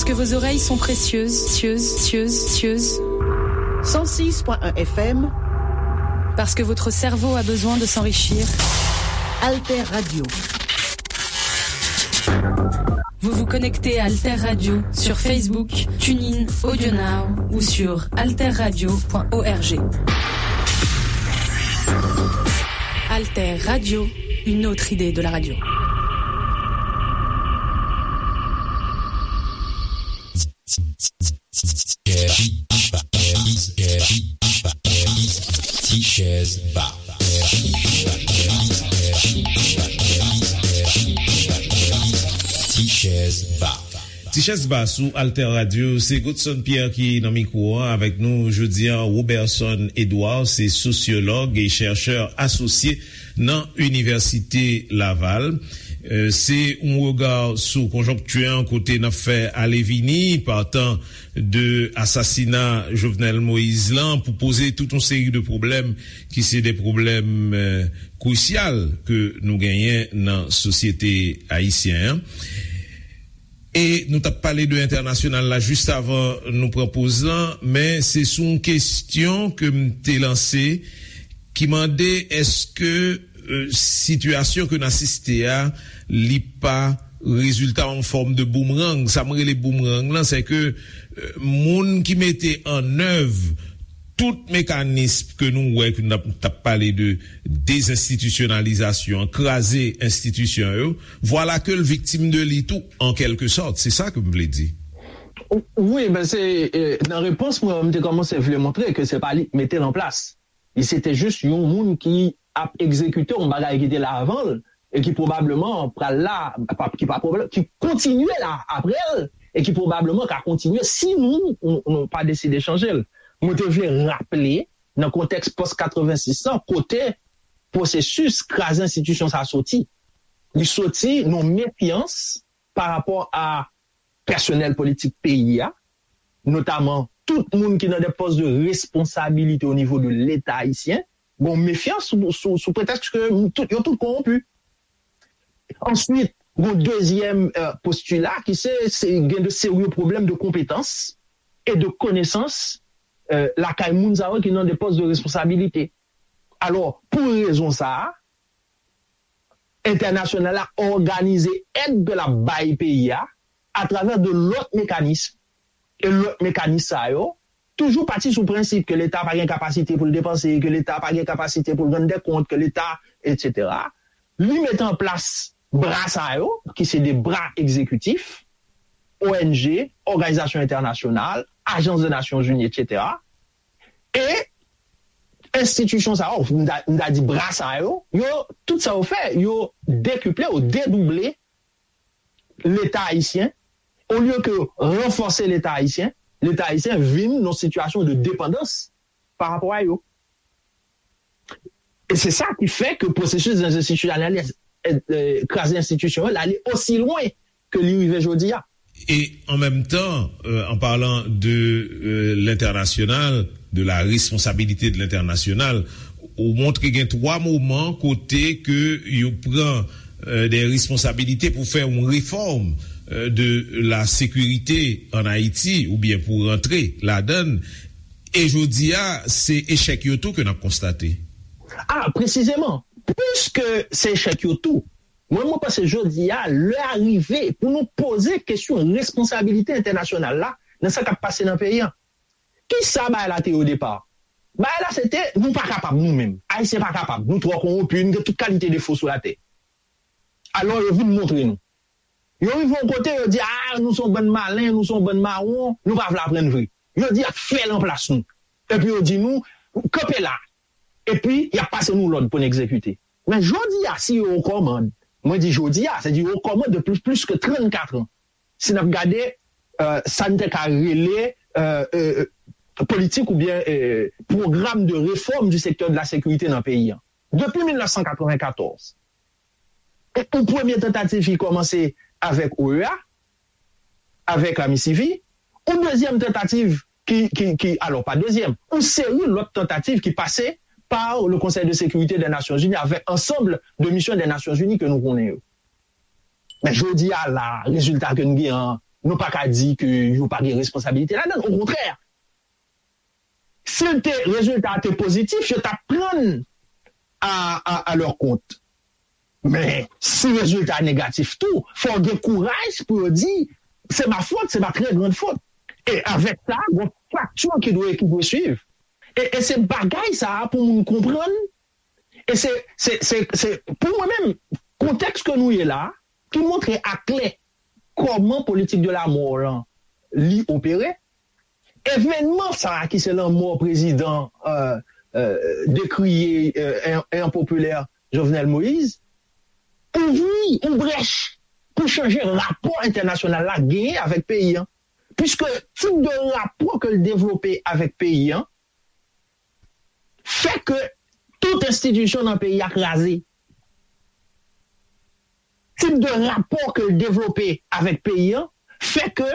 Que vos oreilles sont précieuses, cieuses, cieuses, cieuses. cent six point un F M. Parce que votre cerveau a besoin de s'enrichir. Alter Radio. Vous vous connectez à Alter Radio sur Facebook, TuneIn, AudioNow ou sur alter radio point org. Alter Radio, une autre idée de la radio. Ti chèz ba. Ti chèz ba. Ti chèz ba sou Alter Radio, se Godson Pierre ki nan mikwo an avèk nou jodi an, Roberson Edouard, se sosyològ e chèchè asosye nan Inivèsite Laval. Euh, se yon rega sou konjonkti an kote n ap fè ale vini, patan de asasina Jovenel Moïse lan, pou poze tout yon seri de pwoblèm ki se de pwoblèm, euh, krisyal ke nou genyen nan sosyete ayisyen an. E nou t ap pale de entènasyonal la jis avan nou pran poz lan, men se sou yon kesyon ke m te lanse ki mande èske, euh, sitiyasyon ke n asiste a, li pa rezilta yon fòm de boomerang. Sa m rele boomerang lan, se ke, euh, moun ki mete an èv tout mekanis ke nou wè, ke n ap, t ap pale de dezenstitisyonalizasyon, kraze enstitisyon yo, vwala ke l viktim de li tou, an kèlke sòt. Se sa ke m vle di. Wi, men se, eh, nan repons mwen, m te kòmanse vle montre ke se pa li ki mete l an plas. Li se te jis yon moun ki ap egzekite yon bagay ki te la avan l, e ki pwobableman pral la, pa, ki pa pwoblèm, ki kontinye la apre l, e ki pwobableman ka kontinye si nou, nou, nou pa deside chanje l. Mwen te vle raple, nan kontèks pòs katrevensis lan, kote pwosesis kraze enstitisyon sa soti. Li soti nan mefyans pa rapò a pèsonèl politik peyi a, notaman tout moun ki nan de pòs de responsabilite o nivo de Leta ayisyen, gon mefyans sou, sou, sou pretèks ke tout, yo tout kowonpi. Answit, gon dezyèm, euh, postila ki se, se gen de serye pwoblèm de konpetans e de konesans, euh, lakay moun sa yo ki nan de pòs de responsabilite. Alò, pou rezon sa a, entènasyonal la òganize èd ke l ap bay peyi a atravè de lòt mekanis. E lòt mekanis sa yo toujou pati sou prensip ke Leta pa gen kapasite pou l depanse, ke Leta pa gen kapasite pou l rann dè kont, ke Leta, etsetera. Li mete an plas bra sa yo, ki se de bra egzekitif, O N G, òganizasyon entènasyonal, ajans de Nasyonzini, etsetera. E enstitisyon sa yo, m ta, m ta di bra sa yo, yo, tout sa yo fè, yo dekiple, yo dedouble Leta ayisyen, olye ke ranfòse Leta ayisyen, Leta ayisyen vin nan sitiyasyon de depandans pa rapò a yo. E se sa ki fè ke pwosesis dezenstitisyonaliz-, eh, eh, kraze enstitisyon yo, l ale osi lwen ke li rive jodi a. E an menm tan, euh, en parlant de, euh, l'international, de la responsabilité de l'international, ou montre gen twa moman kote ke yo pran, euh, de responsabilite pou fè yon refòm, euh, de la sécurité en Haïti, oubyen pou rantre ladan l. E jodi a, se echèk yo tou ke n ap konstate. A, presizeman, piske se echèk yo tou, mwen, mwen panse jodi a, lè a rive pou nou poze kesyon responsabilite entènasyonal la nan sa k ap pase nan peyi a. Kisa bagay la te ye o depa? Bagay la se te, nou pa kapab nou menm. Ayisyen pa kapab. Nou twò kowonpi, nou gen tout kalite defo sou latè. Alò, yo vin montre nou. Yo rive yon kote, yo di, a, nou se yon bann malen, nou se yon bann mawon, nou pa vle aprann vre. Yo di, y ap fè l anplas nou. Epi yo di nou, kanpe la. Epi, y ap pase nou lòd pou n egzekite. Men jodi a, si yo o kòmand, mwen di jodi a, se di yo o kòmand depi plis ke trannkat an. Si n ap gade, euh, sa n te ka rele, euh, euh, politik oubyen, euh, pwogram de réforme du secteur de la sécurité nan peyi a. Depi mil nèf san katrevenkatòz, yon premye tantativ ki kòmanse avèk O E A, avèk Amisivi, yon dezyèm tantativ ki, ki, ki, alò, pa dezyèm, yon seri lòt tantativ ki pase par le Conseil de sécurité des Nations Unies avec ensemble de missions des Nations Unies ke nou konnen yo. Men jodi a la, rezilta ke n gen an, nou pa ka di ke yo pa gen responsabilite ladan l. Okontrè, si l te, rezilta a te pozitif, yo t ap pran l a, a, a leur compte. Men, si rezilta a negatif tou, fò w gen kouraj pou yo di, c'est ma faute, c'est ma très grande faute. E avèk sa, gon fakti ki dwe, ki dwe swiv. E, e se bagay sa a pou moun konprann. E se, se, se, se, pou mwen menm, kontèks ke nou ye la, ki montre aklè kòman politik de la mò lan li opere, evènman sa a ki se lanmò prezidan, euh, euh, dekriye, euh, e, e enpopilè Jovenel Moïse, ouvri yon brèch pou chanje rapò entènasyonal la genyen avèk peyi an. Piske tip de rapò ke l devlope avèk peyi an fè ke tout enstitisyon nan peyi a kraze. Tip de rapò ke l devlope avèk peyi an fè ke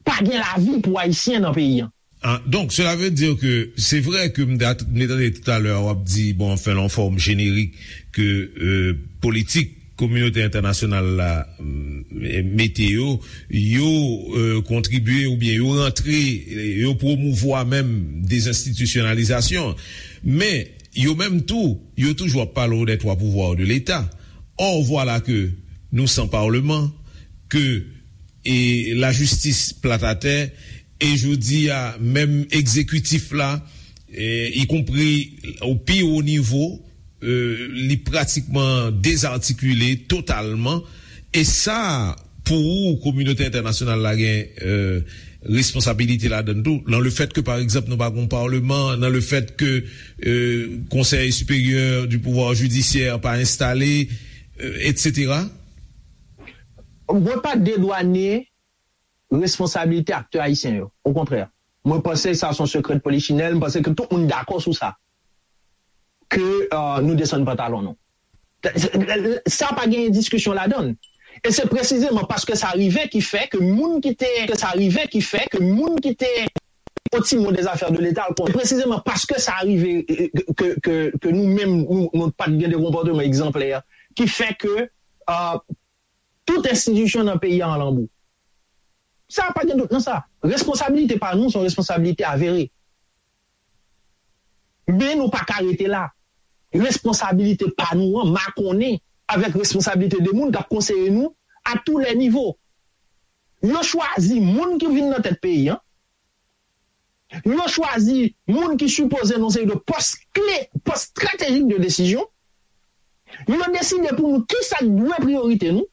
pa gen lavi pou Ayisyen nan peyi an. Ah, donc, cela veut dire que c'est vrai que m te tande talè w ap di, bon, anfen, lan fòm jenerik, ke euh, politik kominote entènasyonal la mm, mete yo, yo euh, kontribye oubyen yo rantre, yo pwomouvwa menm dezenstitisyonalizasyon. Men, yo menm tou, yo toujou ap pale w des trois pouvoirs de l'État. Or, voilà que nous sans parlement, que e lajistis plat atè, e jodi a, menm egzekitif la, e, ikonpri o pi wo nivo, e, li pratikman dezatikile totalman. E sa, pou ou, kominote entènasyonal la gen, e, responsabilite ladan l tou, nan le fèt ke, pa egzanp, nou pa gon palman, nan le fèt ke, e, Conseil supérieur du pouvoir judiciaire pa enstale, e, etsetera? Mwen pa dedwane responsabilite aktè ayisyen yo. Okontrè, mwen panse sa se yon sekrè de polichinèl, mwen panse ke tout moun dakò sou sa. Ke euh, nou desann pantalon nou. Sa pa gen diskisyon ladan l. E se presizeman paske sa rive ki fè ke moun ki te, ke sa rive ki fè ke moun ki te yon ti mo des affaires de l'État, presizeman paske sa rive ke, ke, ke nou menm, nou, nou pa t gen de konpòteman egzanplè, ki fè ke euh, tout enstitisyon nan peyi a an lanbou. Sa pa gen dout nan sa. Responsabilite pa nou, se yon responsabilite avere. Men nou pa ka rete la. Responsabilite pa nou an makonnen avèk responsabilite de moun k ap konseye nou à tous les niveaux. Yo chwazi moun ki vin nan tèt peyi an. Yo chwazi moun ki sipoze nan seri de pòs kle, pòs estratejik de desizyon. Yo deside pou nou kisa k dwe priyorite nou.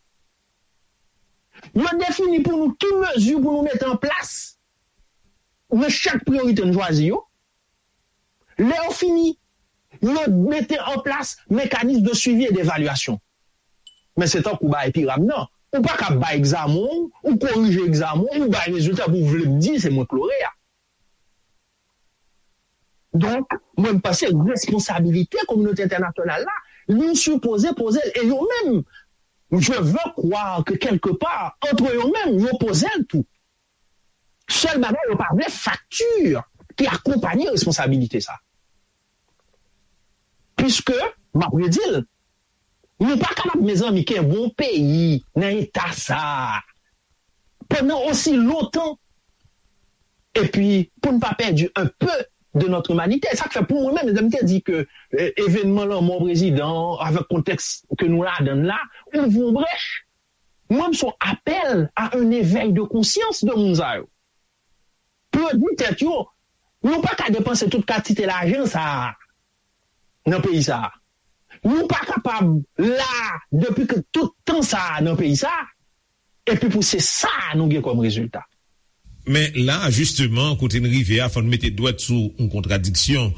Yo defini pou nou ki mezi pou nou mete an plas nan chak priyorite nou chwazi yo. Lè yo fini, yo mete an plas mekanis de suivi e devalyasyon. Men se tankou bay piram nan. Ou pa ka bay egzamen w, ou korije egzamen w, ou bay rezilta pou w vle m di se mwen k lore a. Donk, mwen m panse responsabilite kominote entènasyonal la, li sipoze poze l. E yo menm, je veux croire que quelque part, entre yo menm, yo poze l tou. Sèl bagay, yo pa vle fakti ki akonpanye responsabilite sa. Piske, m ap redi l, nou pa kapab, mezanmi, kenbe yon peyi nan eta sa a pandan osi lontan. Epi, pou n pa pèdi un peu de notre humanité. Sa k fè pou mwen menm, lè m te di ke eh, evènman lanmò prezidan an, avèk kontèks ke nou ladan l la, ouvri yon brèch. Mwen, m se yon apèl à un éveil de conscience de moun sa yo. Pou yo di tèt yo, nou pa ka depanse tout kantite lajan sa a nan peyi sa a. Nou pa kapab la depi ke tout tan sa a nan peyi sa a, epi pou se sa a nou gen kòm rezilta. Men la, jisteman, kote n rive a, fò n mete dwèt sou yon kontradiksyon.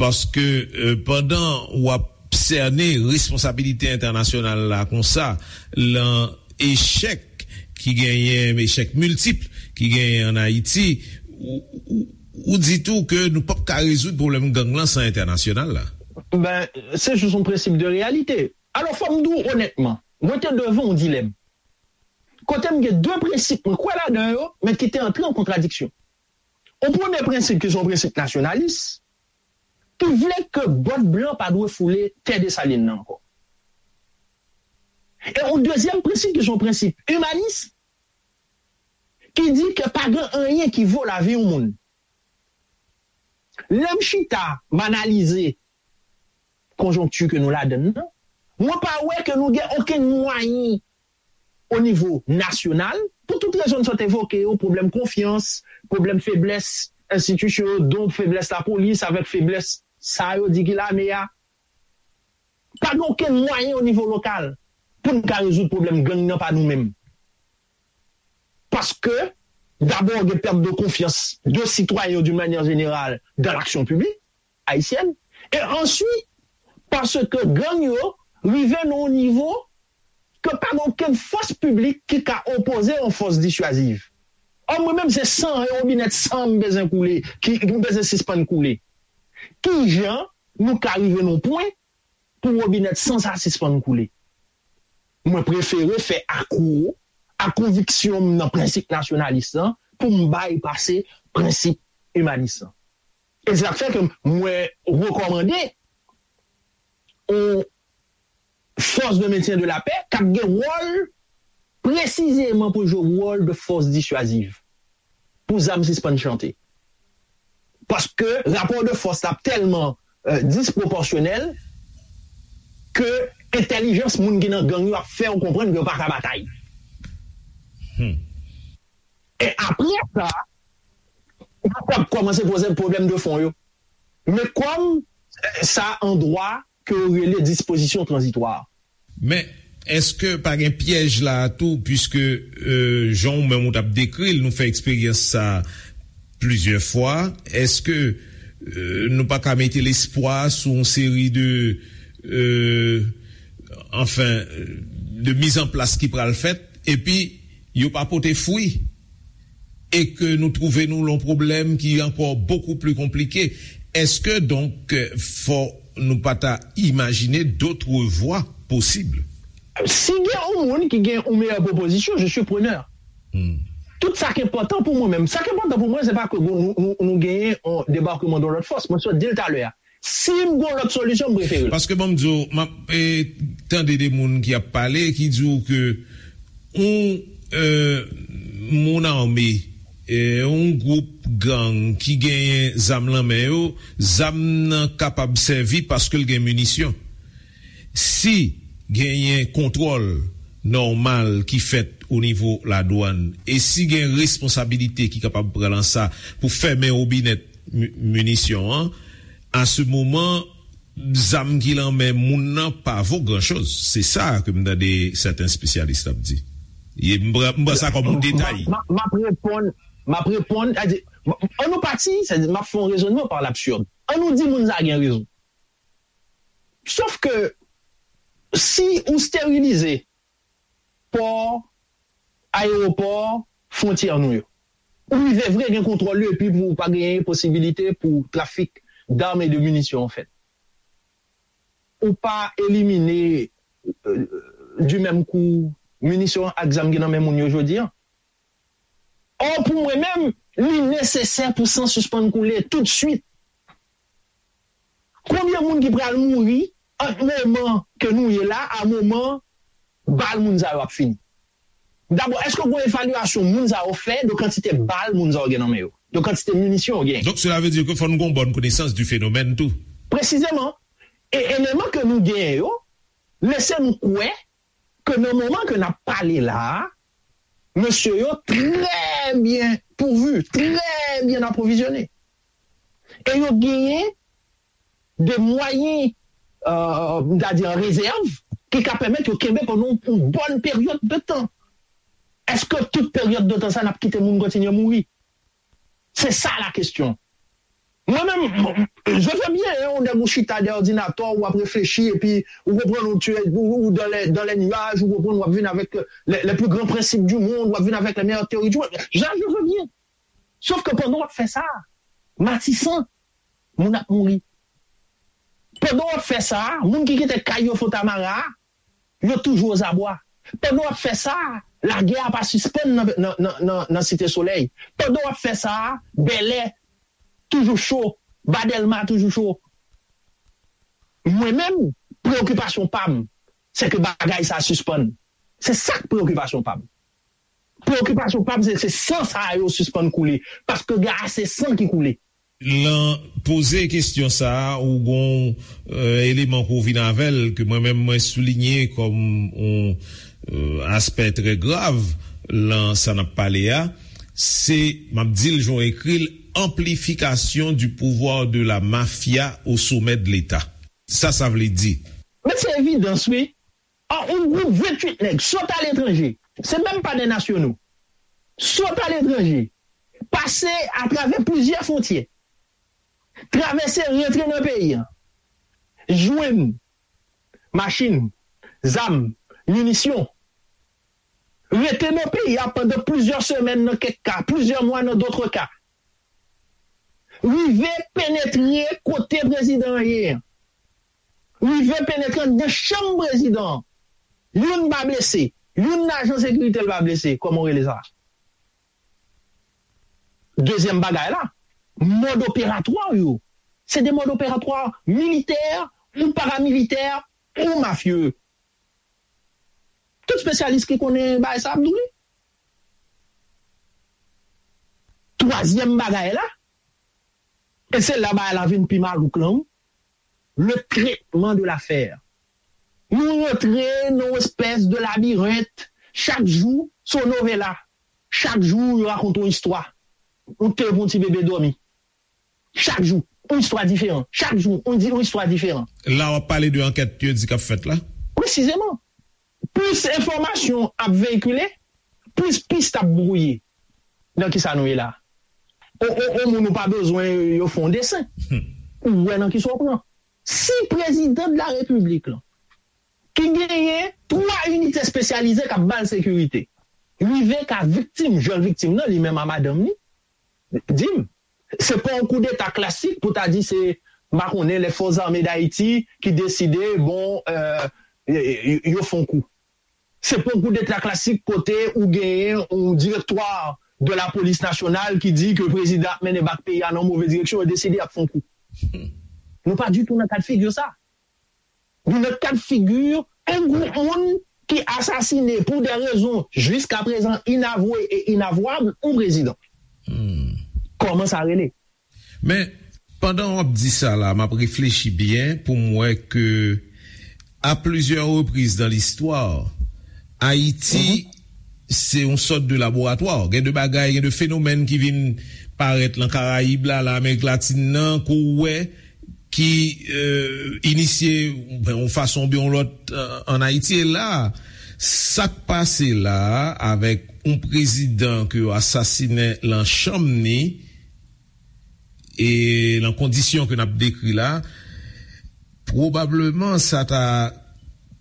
Paske, euh, pandan w ap sène responsabilite entènasyonal la konsa, lan echèk ki genyen, echèk miltip ki genyen ann Ayiti, ou, ou, ou di tou ke nou p ap ka rezoud pwoblèm gang lan san entènasyonal la. Ben, se jis yon prensip de reyalite. Alò, fò m di w onètman, mwen te devan yon dilèm. Kote m gen de prensip mwen kwè ladan yo, men ki te antre an kontradiksyon. Yon premye prensip ki se yon prensip nasyonalis, ki vle ke bòt blan pa dwe foule tè Desalin nan ankò. E yon dezyèm prensip ki se yon prensip imanis, ki di ke pa gen anyen ki vo lavi yon moun. Lè m chita, m analize konjonkti ke nou ladann nan, mwen pa wè ke nou gen okenn mwayen o nivo nasyonal, pou tout rezon m sot evoke yo, pwoblèm konfyans, pwoblèm feblès enstitisyon yo, don feblès lapolis avèk feblès sa yo di ki lame a. Pa gen okenn mwayen o nivo lokal pou n ka rezoud pwoblèm gang nan pa nou menm. Paske, dabò, gen pèt de konfyans de sitwayen yo, d'une manière générale, dans l'action publique haïtienne. E answit, paske gang yo rive nan yon nivo ke pa gen okenn fòs piblik ki ka opoze yon fòs disyaziv. Ò, mwen menm, se san, yon wobinèt san m bezwen koule, ki m bezwen sispann koule. Kijan nou ka rive nan yon pwen pou wobinèt san sa sispann koule? Mwen prefere fè akwo a konviksyon m nan prensip nasyonalis lan pou m bay pase prensip imanis lan. E se sa k fè ke mwen rekòmande yon fòs de mentyen de lapè k ap gen wòl presizeman pou jwe wòl de fòs disyaziv pou zam sispann chante. Paske rapò de fòs la tèlman euh, dispwopòsyonèl ke entèlijans moun ki nan gang yo ap fè w konprann ke yo pa ka batay. Hmm. E apre sa, yo p ap kòmanse poze pwoblèm de fon yo. Men kòm eh, sa an dwa ke yo rele dispozisyon tranzitwa. Men, èske pa gen pyèj la a tou, piske euh, jan ou menm ou t ap dekri l, nou fè eksperyans sa plizyè fwa, èske euh, nou pa ka mete lespwa sou yon seri de euh, anfen, de mizanplas ki pral fèt, epi yo pa pote fwi, e ke nou twouve nou lan pwoblèm ki ankò bokou pli konplike? Èske donk fò nou pa ta imajine dotre vwa posib? Si gen yon moun ki gen yon meyè pwopozisyon, je suis preneur. Hmm. Tout sa ki enpòtan pou mwen menm. Sa ki enpòtan pou mwen, se pa ke nou, nou, nou genyen yon debakman de lòt fòs. Mwen sot di l talè a. Si m gen lòt solisyon, m prefere l. Paske ban m di w, m ap eh, tande de moun ki ap pale, ki di w ke yon eh, moun ame, eh, yon gwoup gang ki genyen zam lan men yo, zam nan kapab sèvi paske l gen minisyon. Si genyen kontwòl nòmal ki fèt o nivo ladwann e si gen responsabilite ki kapab pran lan sa pou fèmen wobinèt minisyon an, a se moman zam ki lan men moun nan pa vo gran choz. Se sa ke m tande sèten espesyalis ap di. M pran sa kòm yon detay. M ap reponn, m ap reponn, an nou pati, m ap fè yon rezonnman pa labsird. An nou di moun sa gen rezon. Sof ke si ou sterilize pò, ayewopò, fwontyè nou yo, ou rive vre gen kontwòl yo epi pou pa genyen posibilite pou trafik dam e de minisyon an fèt. Ou pa elimine euh, du menm kou minisyon ak zam ki nan men moun yo jodi an. Ò, pou mwen menm, li nesesè pou san sispann koule toutswit. Konbyen moun ki pral mouri ant moman ke nou ye la a moman bal moun sa yo ap fini? Dabò, èske gon evalyasyon moun sa yo fè de kantite bal moun sa yo gen nan men yo, de kantite minisyon yo genyen? Donc cela veut dire que fò nou gon bòn konesans du phénomène tou. Presizeman. E eleman ke nou genyen yo lese nou kwè ke nan moman ke n ap pale la a, mesye yo trè byen pouvu, trè byen apwovizyone. E yo genyen de mwayen, euh, m ta di an rezèv, ki ka pèmèt yo kenbe pandan yon bòn peryòd de tan. Èske tout peryòd de tan sa n ap kite moun kontinye mouri? Se sa la kesyon. Mwen menm, je veux bien, hein, ou nèg ou chita dèyè òdinatè, ou ap reflechi, epi ou konprann ou tye, ou, ou dans les, dans les nuages, ou konprann ou ap vin avèk les, les plus grands principes du monde, ou ap vin avèk les meilleures théories du monde. Ja, je veux bien. Sof ke pandan w ap fè sa, Matisan, moun ap mouri. Pandan w ap fè sa, moun ki kite kay yo Fontamara, yo toujou ozabwa. Pandan w ap fè sa, lagè a pa sispann nan, nan, nan, nan, nan Site Solèy. Pandan w ap fè sa, Bèlè toujou cho, ba Dèlma toujou cho. Mwen menm, preyokipasyon pa m, se ke bagay sa sispann. Se sa k preyokipasyon pa m. Preyokipasyon pa m se, se san sa yo sispann koule, paske gen ase san ki koule. Lan poze kesyon sa a, ou gon euh, eleman pou vin avè l, ke mwen menm mwen soulinye kòm yon euh, aspè trè grav lan sa n ap pale a, se, m ap di l jan w ekri l, amplifikasyon du pouvoir de la mafia au sommet de l'État. Sa sa vle di? Men se evidans, wi. An, yon gwoup venntuit nèg sot aletranje, se menm pa de nasyono, sot aletranje, pase atravè plizyè fwontyè, travèse, rantre nan peyi a, jwenn machin, zam, minisyon, rete nan peyi a pandan plizyè semèn nan kèk ka, plizyè mwa nan dòt ka, rive penetre kote prezidan an ye an, rive penetre anndan chanm prezidan an. Youn pa blese, youn nan ajan sekirite l pa blese, kòman w rele sa? Dezyèm bagay la, mòd operatwa yo, se de mòd operatwa militè ou paramilitè ou mafye. Tout espesyalis ki konnen bagay sa ap di w li. Twazyèm bagay la, e se la bagay la vin pi malouk lan, wi, le traitement de l'affaire. Nou rantre nan yon espès de labirent, chak jou se yon novela, chak jou yo rakonte yon istwa. Ou te pou yon ti bebe dòmi. Chak jou, yon istwa diferan. Chak jou, yon di yon istwa diferan. La w ap pale de ankèt yo di k ap fèt la? Presizeman. Plis enfòmasyon ap veyikile, plis pis ap bwouye. Nan kisa nou ye la? On, on, on moun ou pa bezwen yo fè yon desen. Ou wè nan kisa w pran. Si prezidan de la repiblik lan, ki genyen twa inite espesyalize k ap ba l sekirite, rive ka viktim, jwenn viktim nan, li menm a madanm li, di m, se pa yon koudeta klasik pou ta di se, m pa konnen, lè Fòs Zame Dayiti ki deside, bon, euh, yo, yo, yo fè yon kou. Se pa yon koudeta klasik kote ou genyen yon direktwa de la polis nasyonal ki di ke prezidan ap mennen bak peyi a nan move direksyon, yo deside y ap fè yon kou. Nou pa ditou nan kad figi sa. Nou nan kad figi yon gwoup moun ki asasine pou de rezon jiskaprezan inavwe e inavwab yon prezidan. Kòman sa rele? Men, pandan w ap di sa la, m ap reflechi byen pou m wè ke a plizyè repriz nan listwa, Ayiti se yon sòt de laboratwa. Gen de bagay, gen de fenomèn ki vin parèt lan Karayib la, lan Amerik Latin nan, ke w wè ki euh, inisye yon fason oubyen yon lòt euh, ann Ayiti. E la, sa k pase la avèk yon prezidan ke yo asasinen lan chanm ni e lan kondisyon ke n ap dekri la, pwobableman sa ta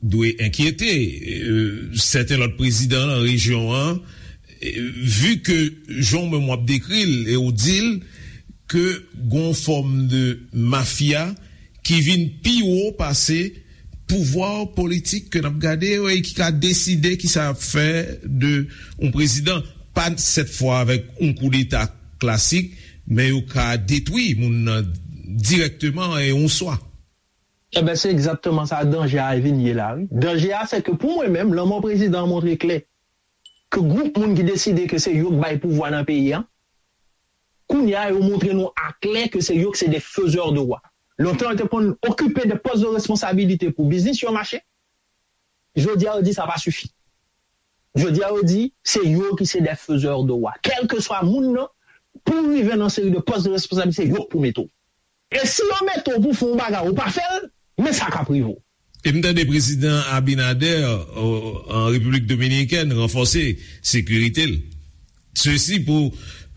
dwe enkyete euh, sèten lòt prezidan lan rejyon an, euh, vi ke jan w menm w ap dekri l e w di l ke gon fòm de mafya ki vin pi wo pase pouvwa politik ke n ap gade yo e ki ka deside kisa y ap fè de yon prezidan, pa sèt fwa avèk yon koudeta klasik, men yo ka detwi moun nan dirèkteman e yon swa. Ebyen, se egzakteman sa danje a vin ye la, wi. Danje a, se ke pou mwen menm, lanmò prezidan an montre klè ke gwoup moun ki deside ke se yo k bay pouvwa nan peyi a, kounye a, yo montre nou aklè ke se yo ki se de faiseurs de roi. Lontan, yo te konn okipe de pòs de responsabilite pou biznis yo mache. Jodi a, yo di sa pa sifi. Jodi a, yo di se yo ki se de faiseurs de roi. Kèlkeswa moun nan, pou w rive nan seri de pòs de responsabilite, se yo k pou mete w. E si yo mete w pou fè yon bagay, ou pa fè l, men sa k ap rive w. E m tande prezidan Abinader euh, an Repiblik Dominikèn ranfòse sekirite l. Sesi pou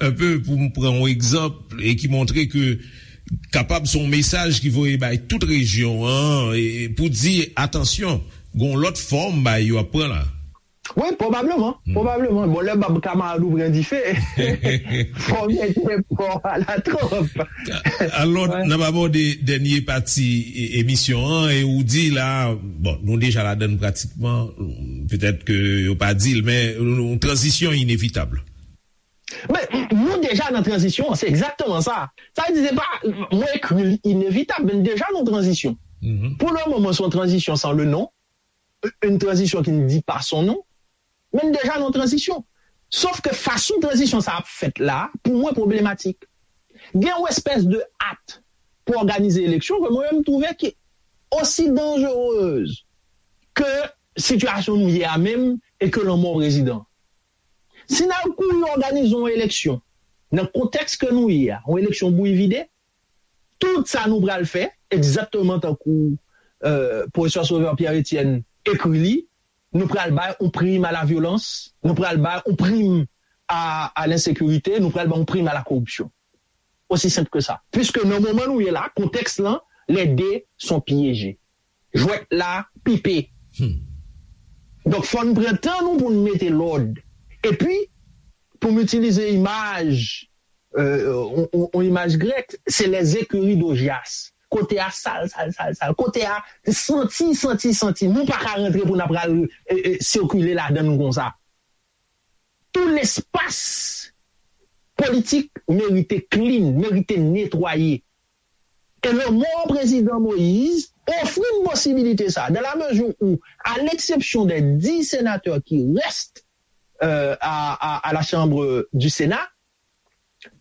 un peu pou m pran yon egzanp e ki montre ke kapab se yon mesaj ki voye bay tout rejyon an e pou di atansyon, gon lòt fòm bay yo ap pran la. Wi, pwobableman, pwobableman. Bon, lè bab kamarad ou pran dife, fò w mete pò a la twòp. Alò, n ap abòde dènye pati e- emisyon an e ou di la, bon, nou deja ladann pratikman, petèt ke yo pa di l, men yon tranzisyon inevitab. Men, nou deja nan tranzisyon an, se egzakteman sa. Sa vle di, se pa, mwen ekri l inevitab, men n deja nan tranzisyon. Pou le moman, se yon tranzisyon san le non, une transition qui ne dit pas son nom, men n deja nan tranzisyon. Sof ke fason tranzisyon sa ap fèt la, pou mwen pwoblematik. Gen yon espès de at pou òganize eleksyon ke mwen menm m twouve ki osi danjerez ke sitiyasyon nou ye a menm e ke lanmò prezidan. Si n al kouri òganize yon eleksyon nan kontèks ke nou ye a, yon eleksyon bouyi vide, tout sa nou pral fè, egzakteman tankou euh, pwofesè Sauveur Pierre Etienne ekri li, nou pral bay yon prim a la vyolans, nou pral bay yon prim a, a lensekirite, nou pral bay yon prim a la koripsyon. Osi senp ke sa. Piske nan moman nou ye la, kontèks lan, les deux sont piégés. Jwèt la pipe. Donk, fò n pran tan nou pou n mete lòd. Epi, pou m itilize imaj, euh, on, on, on imaj grèk, se les écuries d'Augias. Kote a sal, sal, sal, sal. Kote a santi, santi, santi. Nou pa ka rantre pou n ap pral e, e, sikile ladan l konsa. Tout lespas politik merite clean, merite netwaye. E lanmò prezidan Moïse ofri n posibilite sa, dans la mesure où, à l'exception des dix sénateurs qui restent euh, à, à, à la Chambre du Sénat,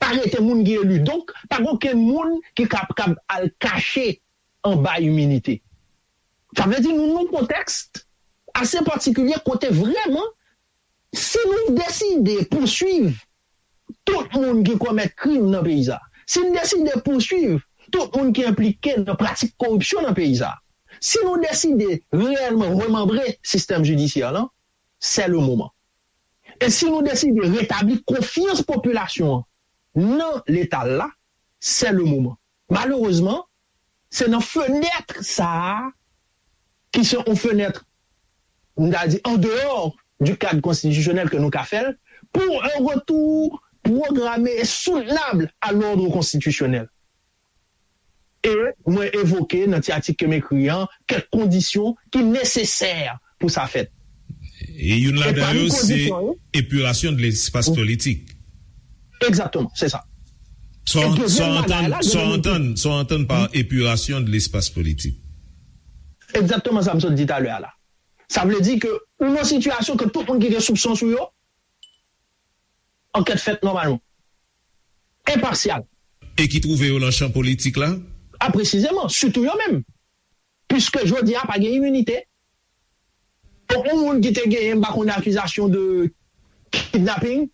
pa rete moun ki eli. Donk, pa gen okenn moun ki kapab al kache anba iminite. Sa vle di nou nan yon kontèks ase patikilye kote vrèman, si nou deside pouswiv tout moun ki komèt krim nan peyi sa, si n deside pouswiv tout moun ki enplike nan pratik koripsyon nan peyi sa, si nou deside reyèlman remanbre sistèm jidisyè lan, c'est le moment. E si nou deside retabli konfyans popilasyon an nan Leta la, c'est le moment. Malerezman, se nan fenèt sa a, ki se yon fenèt, m ta di, en dehors du cadre constitutionnel ke nou ka fè l, pour un retour programmé et soutenable à l'ordre constitutionnel. E mwen evoke nan ti atik ke m ekri an kèk kondisyon ki nesesè pou sa fèt. E youn ladan yo se epirasyon de lespas politik. Egzakteman, se sa. Sa w antann, sa w antann, sa w antann pa epirasyon de lespas politik. Egzakteman sa m sot di talè a la. Sa vle di ke ou nan sitiyasyon ke tout moun ki gen soupson sou yo, ankèt fèt nòmalman. Enpasyal. E ki twouve yo nan chan politik la? A presizeman, sitou yo menm. Piske jodi a pa gen iminite. Donk, yon moun ki te genyen, m pa konnen, akizasyon de kidnaping,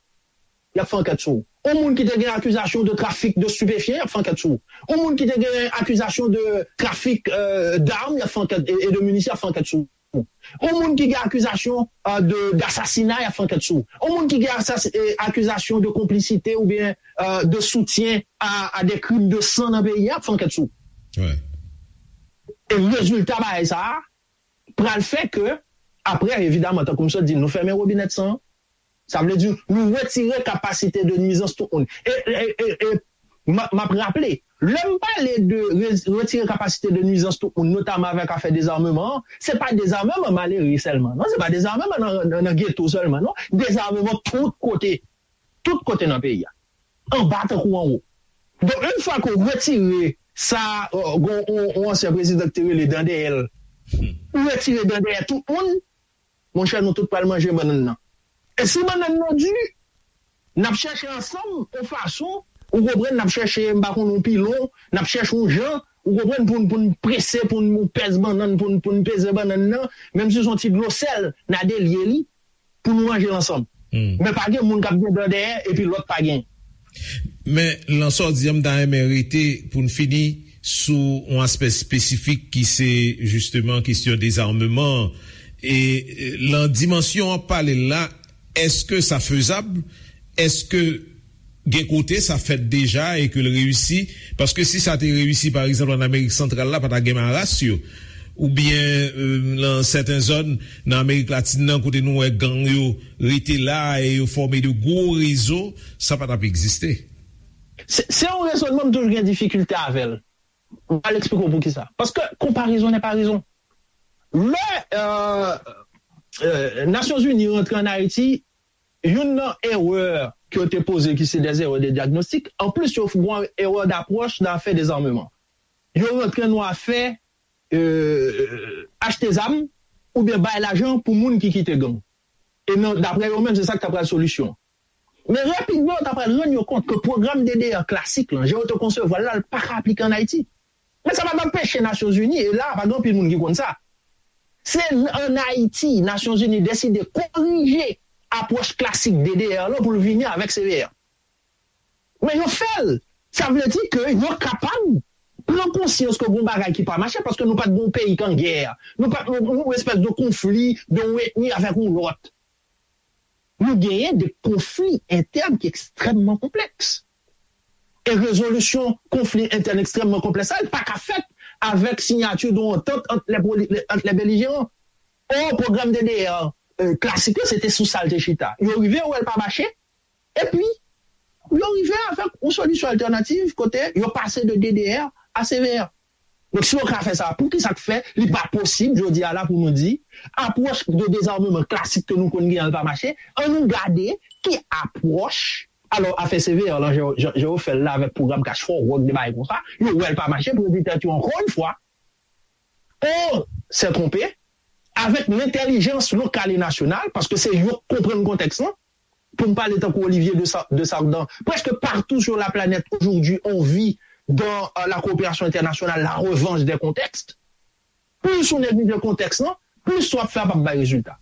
y ap fè ankèt sou ou. Yon moun ki te gen akizasyon de trafik de stupéfiants, y ap fè ankèt sou ou. Yon moun ki te gen akizasyon de trafik euh, d'armes, y ap fè ankèt, e, e de minisyon, y ap fè ankèt sou ou. Yon moun ki gen akizasyon euh, de, d'assassinat, y ap fè ankèt sou ou. Yon moun ki gen asas, e, akizasyon de konplisite oubyen euh, de soutien à, à des crimes de sang nan peyi a, y ap fè ankèt sou ou. Ouais. E rezilta bagay sa a pral fè ke, apre, evidaman, tankou m sot di, nou fèmen wobinèt san an. Sa vle di, nou retire kapasite de nwizans tout moun. E, e, e, e m ap raple, lè m pale de re, retire kapasite de nwizans tout moun, notaman avèk afè dezameman an, se pa dezameman malere sèlman, non? Se pa dezameman nan, nan, nan geto sèlman, non? Dezameman tout kote. Tout kote nan peyi a. Anba tankou anwo. Donk, yon fwa ke w retire sa, yon ansyen prezidan ki te rele dan dèyè l, ou retire dan dèyè tout moun, monchè, nou tout pral manje bannann nan. E si bannann nan di, n ap chèche ansanm yon fason, ou konprann, n ap chèche, m pa konn, yon pilon, n ap chèche yon jan, ou konprann, pou n, pou n prese, pou n pèse bannann, pou n, pou n peze bannann nan, menm si se yon ti dlo sèl, n a delye li, pou nou manje l ansanm. Men pa gen moun k ap gen dan dèyè epi lòt pa gen. Men, lan sa w di an, m ta renmen rete pou n fini sou yon aspè espesifik ki se jisteman kesyon dezameman an. E lan dimansyon w ap pale l la, èske sa fezab? Èske gen kote sa fèt deja e ke l reyisi? Paske si sa te reyisi, pa egzanp, ann Amerik Santral la, pa ta gen maras yo. Oubyen nan sèten zòn nan Amerik Latin nan kote nou wè gang yo rete la e yo fòme de gwo rezo, sa pa t ap egziste. Se yon rezònman m toujou gen difikilte avè l. M pral eksplike w poukisa. Paske konparezon nè pa rezon. Lè Nasyonzini rantre ann Ayiti, youn nan erè ke yo te poze ki se des erreurs de diagnostic, anplis yo fè yon erè d'approche nan afè dezameman. Yo rantre nan afè achte zam oubyen bay lajan pou moun ki kite gang. E nan, daprè yo menm, se sa k ta pral solisyon. Men rapidman, yo ta pral rann yo kont ke pwogram D D R klasik lan, jan yo te konsevwa l la, l pa ka aplike ann Ayiti. Men sa pa t anpeche Nasyonzini, e la, pa gen anpil moun ki konn sa. Se ann Ayiti, Nasyonzini deside korije apwòch klasik D D R lan pou l vini avèk C V R. Men yo fè l. Sa vle di ke yo kapab pran konsyans ke gon bagay ki pa mache, paske nou pa t gon peyi k an gè. Nou pa t yon, yon espès de konfli de yon etni avèk yon lòt. Nou genyen de konfli entèn ki ekstrèmman konplèks. E rezolisyon konfli entèn ekstrèmman konplèks sa, li pa ka fèt avèk siyati de yon antant ant lè poli-, ant lè belijeran. Or, pwogram D D R, euh, klasik la, se te sou sa l te chita. Yo rive, yo wè l pa mache, epi yo rive avèk yon solisyon altènativ kote yo pase de D D R a C V R. Donk, si yo ka fè sa, poukisa k fè li pa posib, jodi a la, pou nou di, apwòch de dezameman klasik ke nou konn genyen an pa mache, ann nou gade ki apwòch, alò, afè C V R lan, jan, jan, jan yo fè l la avèk pwogram Cash for Work, de bagay konsa, yo wè l pa mache, pou yo di tèt yo, ankò yon fwa, on se twonpe, avèk lentèlijans lokal e nasyonal, paske se yo k konprann kontèks lan, pou m pale tankou Olivier de Sa-, de Sardan, presque partout sur la planète aujourd'hui, on vit dans, euh, la coopération internationale, la revanche des contextes. Plis ou neglije kontèks lan, plis sa w ap fè a p ap bay rezilta.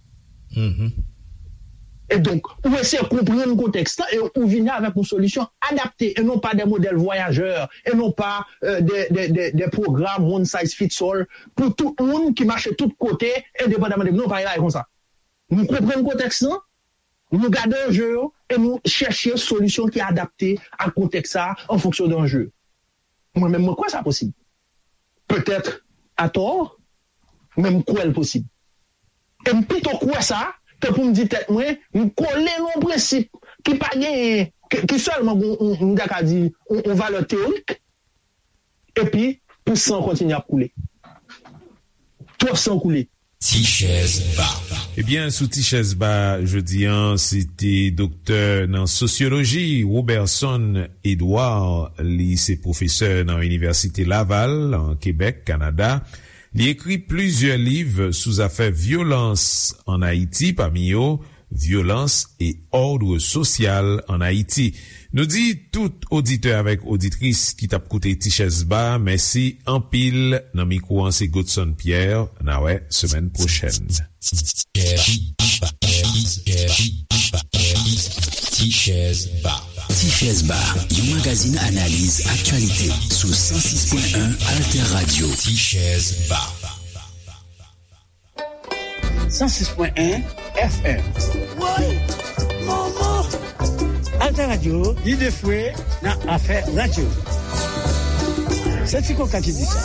E donk, ou eseye konprann kontèks lan e ou vini avèk yon solisyon adapte, e non pa de modèl vwayajè, e non pa, euh, de, de, de, de pwogram one size fits all pou tout moun ki mache tout kote, endepandaman de, non, pa gen bagay konsa. Nou konprann kontèks lan, nou gade anje yo e nou chèche solisyon ki adapte ak kontèks sa a an fonksyon de anje yo. Mwen menm, mwen kwè sa posib. Petèt atò, men m kwè l posib. E m pito kwè sa ke pou m di tèt mwen, m kole nan yon prensip ki pa genyen, ki, ki sèlman gon, m ta ka di, yon, yon valè teyorik, epi pou san kontinye ap koule. Twòp san koule. Ti chèz ba. Ebyen, sou Ti chèz ba jodi a, se te doktè nan sosyoloji, Roberson Edouard. Li se pwofesè nan Inivèsite Laval, an Kebèk, Kanada. Li ekri plizyè liv sou zafè vyolans ann Ayiti, pami yo Violence et ordre social en Haïti. Nou di tout oditè avèk oditris ki t ap koute Ti Chèz Ba, mèsi anpil. Nan mikwo an, se Godson Pierre. N a wè semèn pwochèn. Ti Chèz Ba. Ti Chèz Ba, yon magazin analiz aktyalite sou san sis pwen en Alter Radio. Ti Chèz Ba. San sis pwen en F M. Woy! Manman! Alter Radio, lide fwe nan afè radyo. Se Ti Koka ki di sa.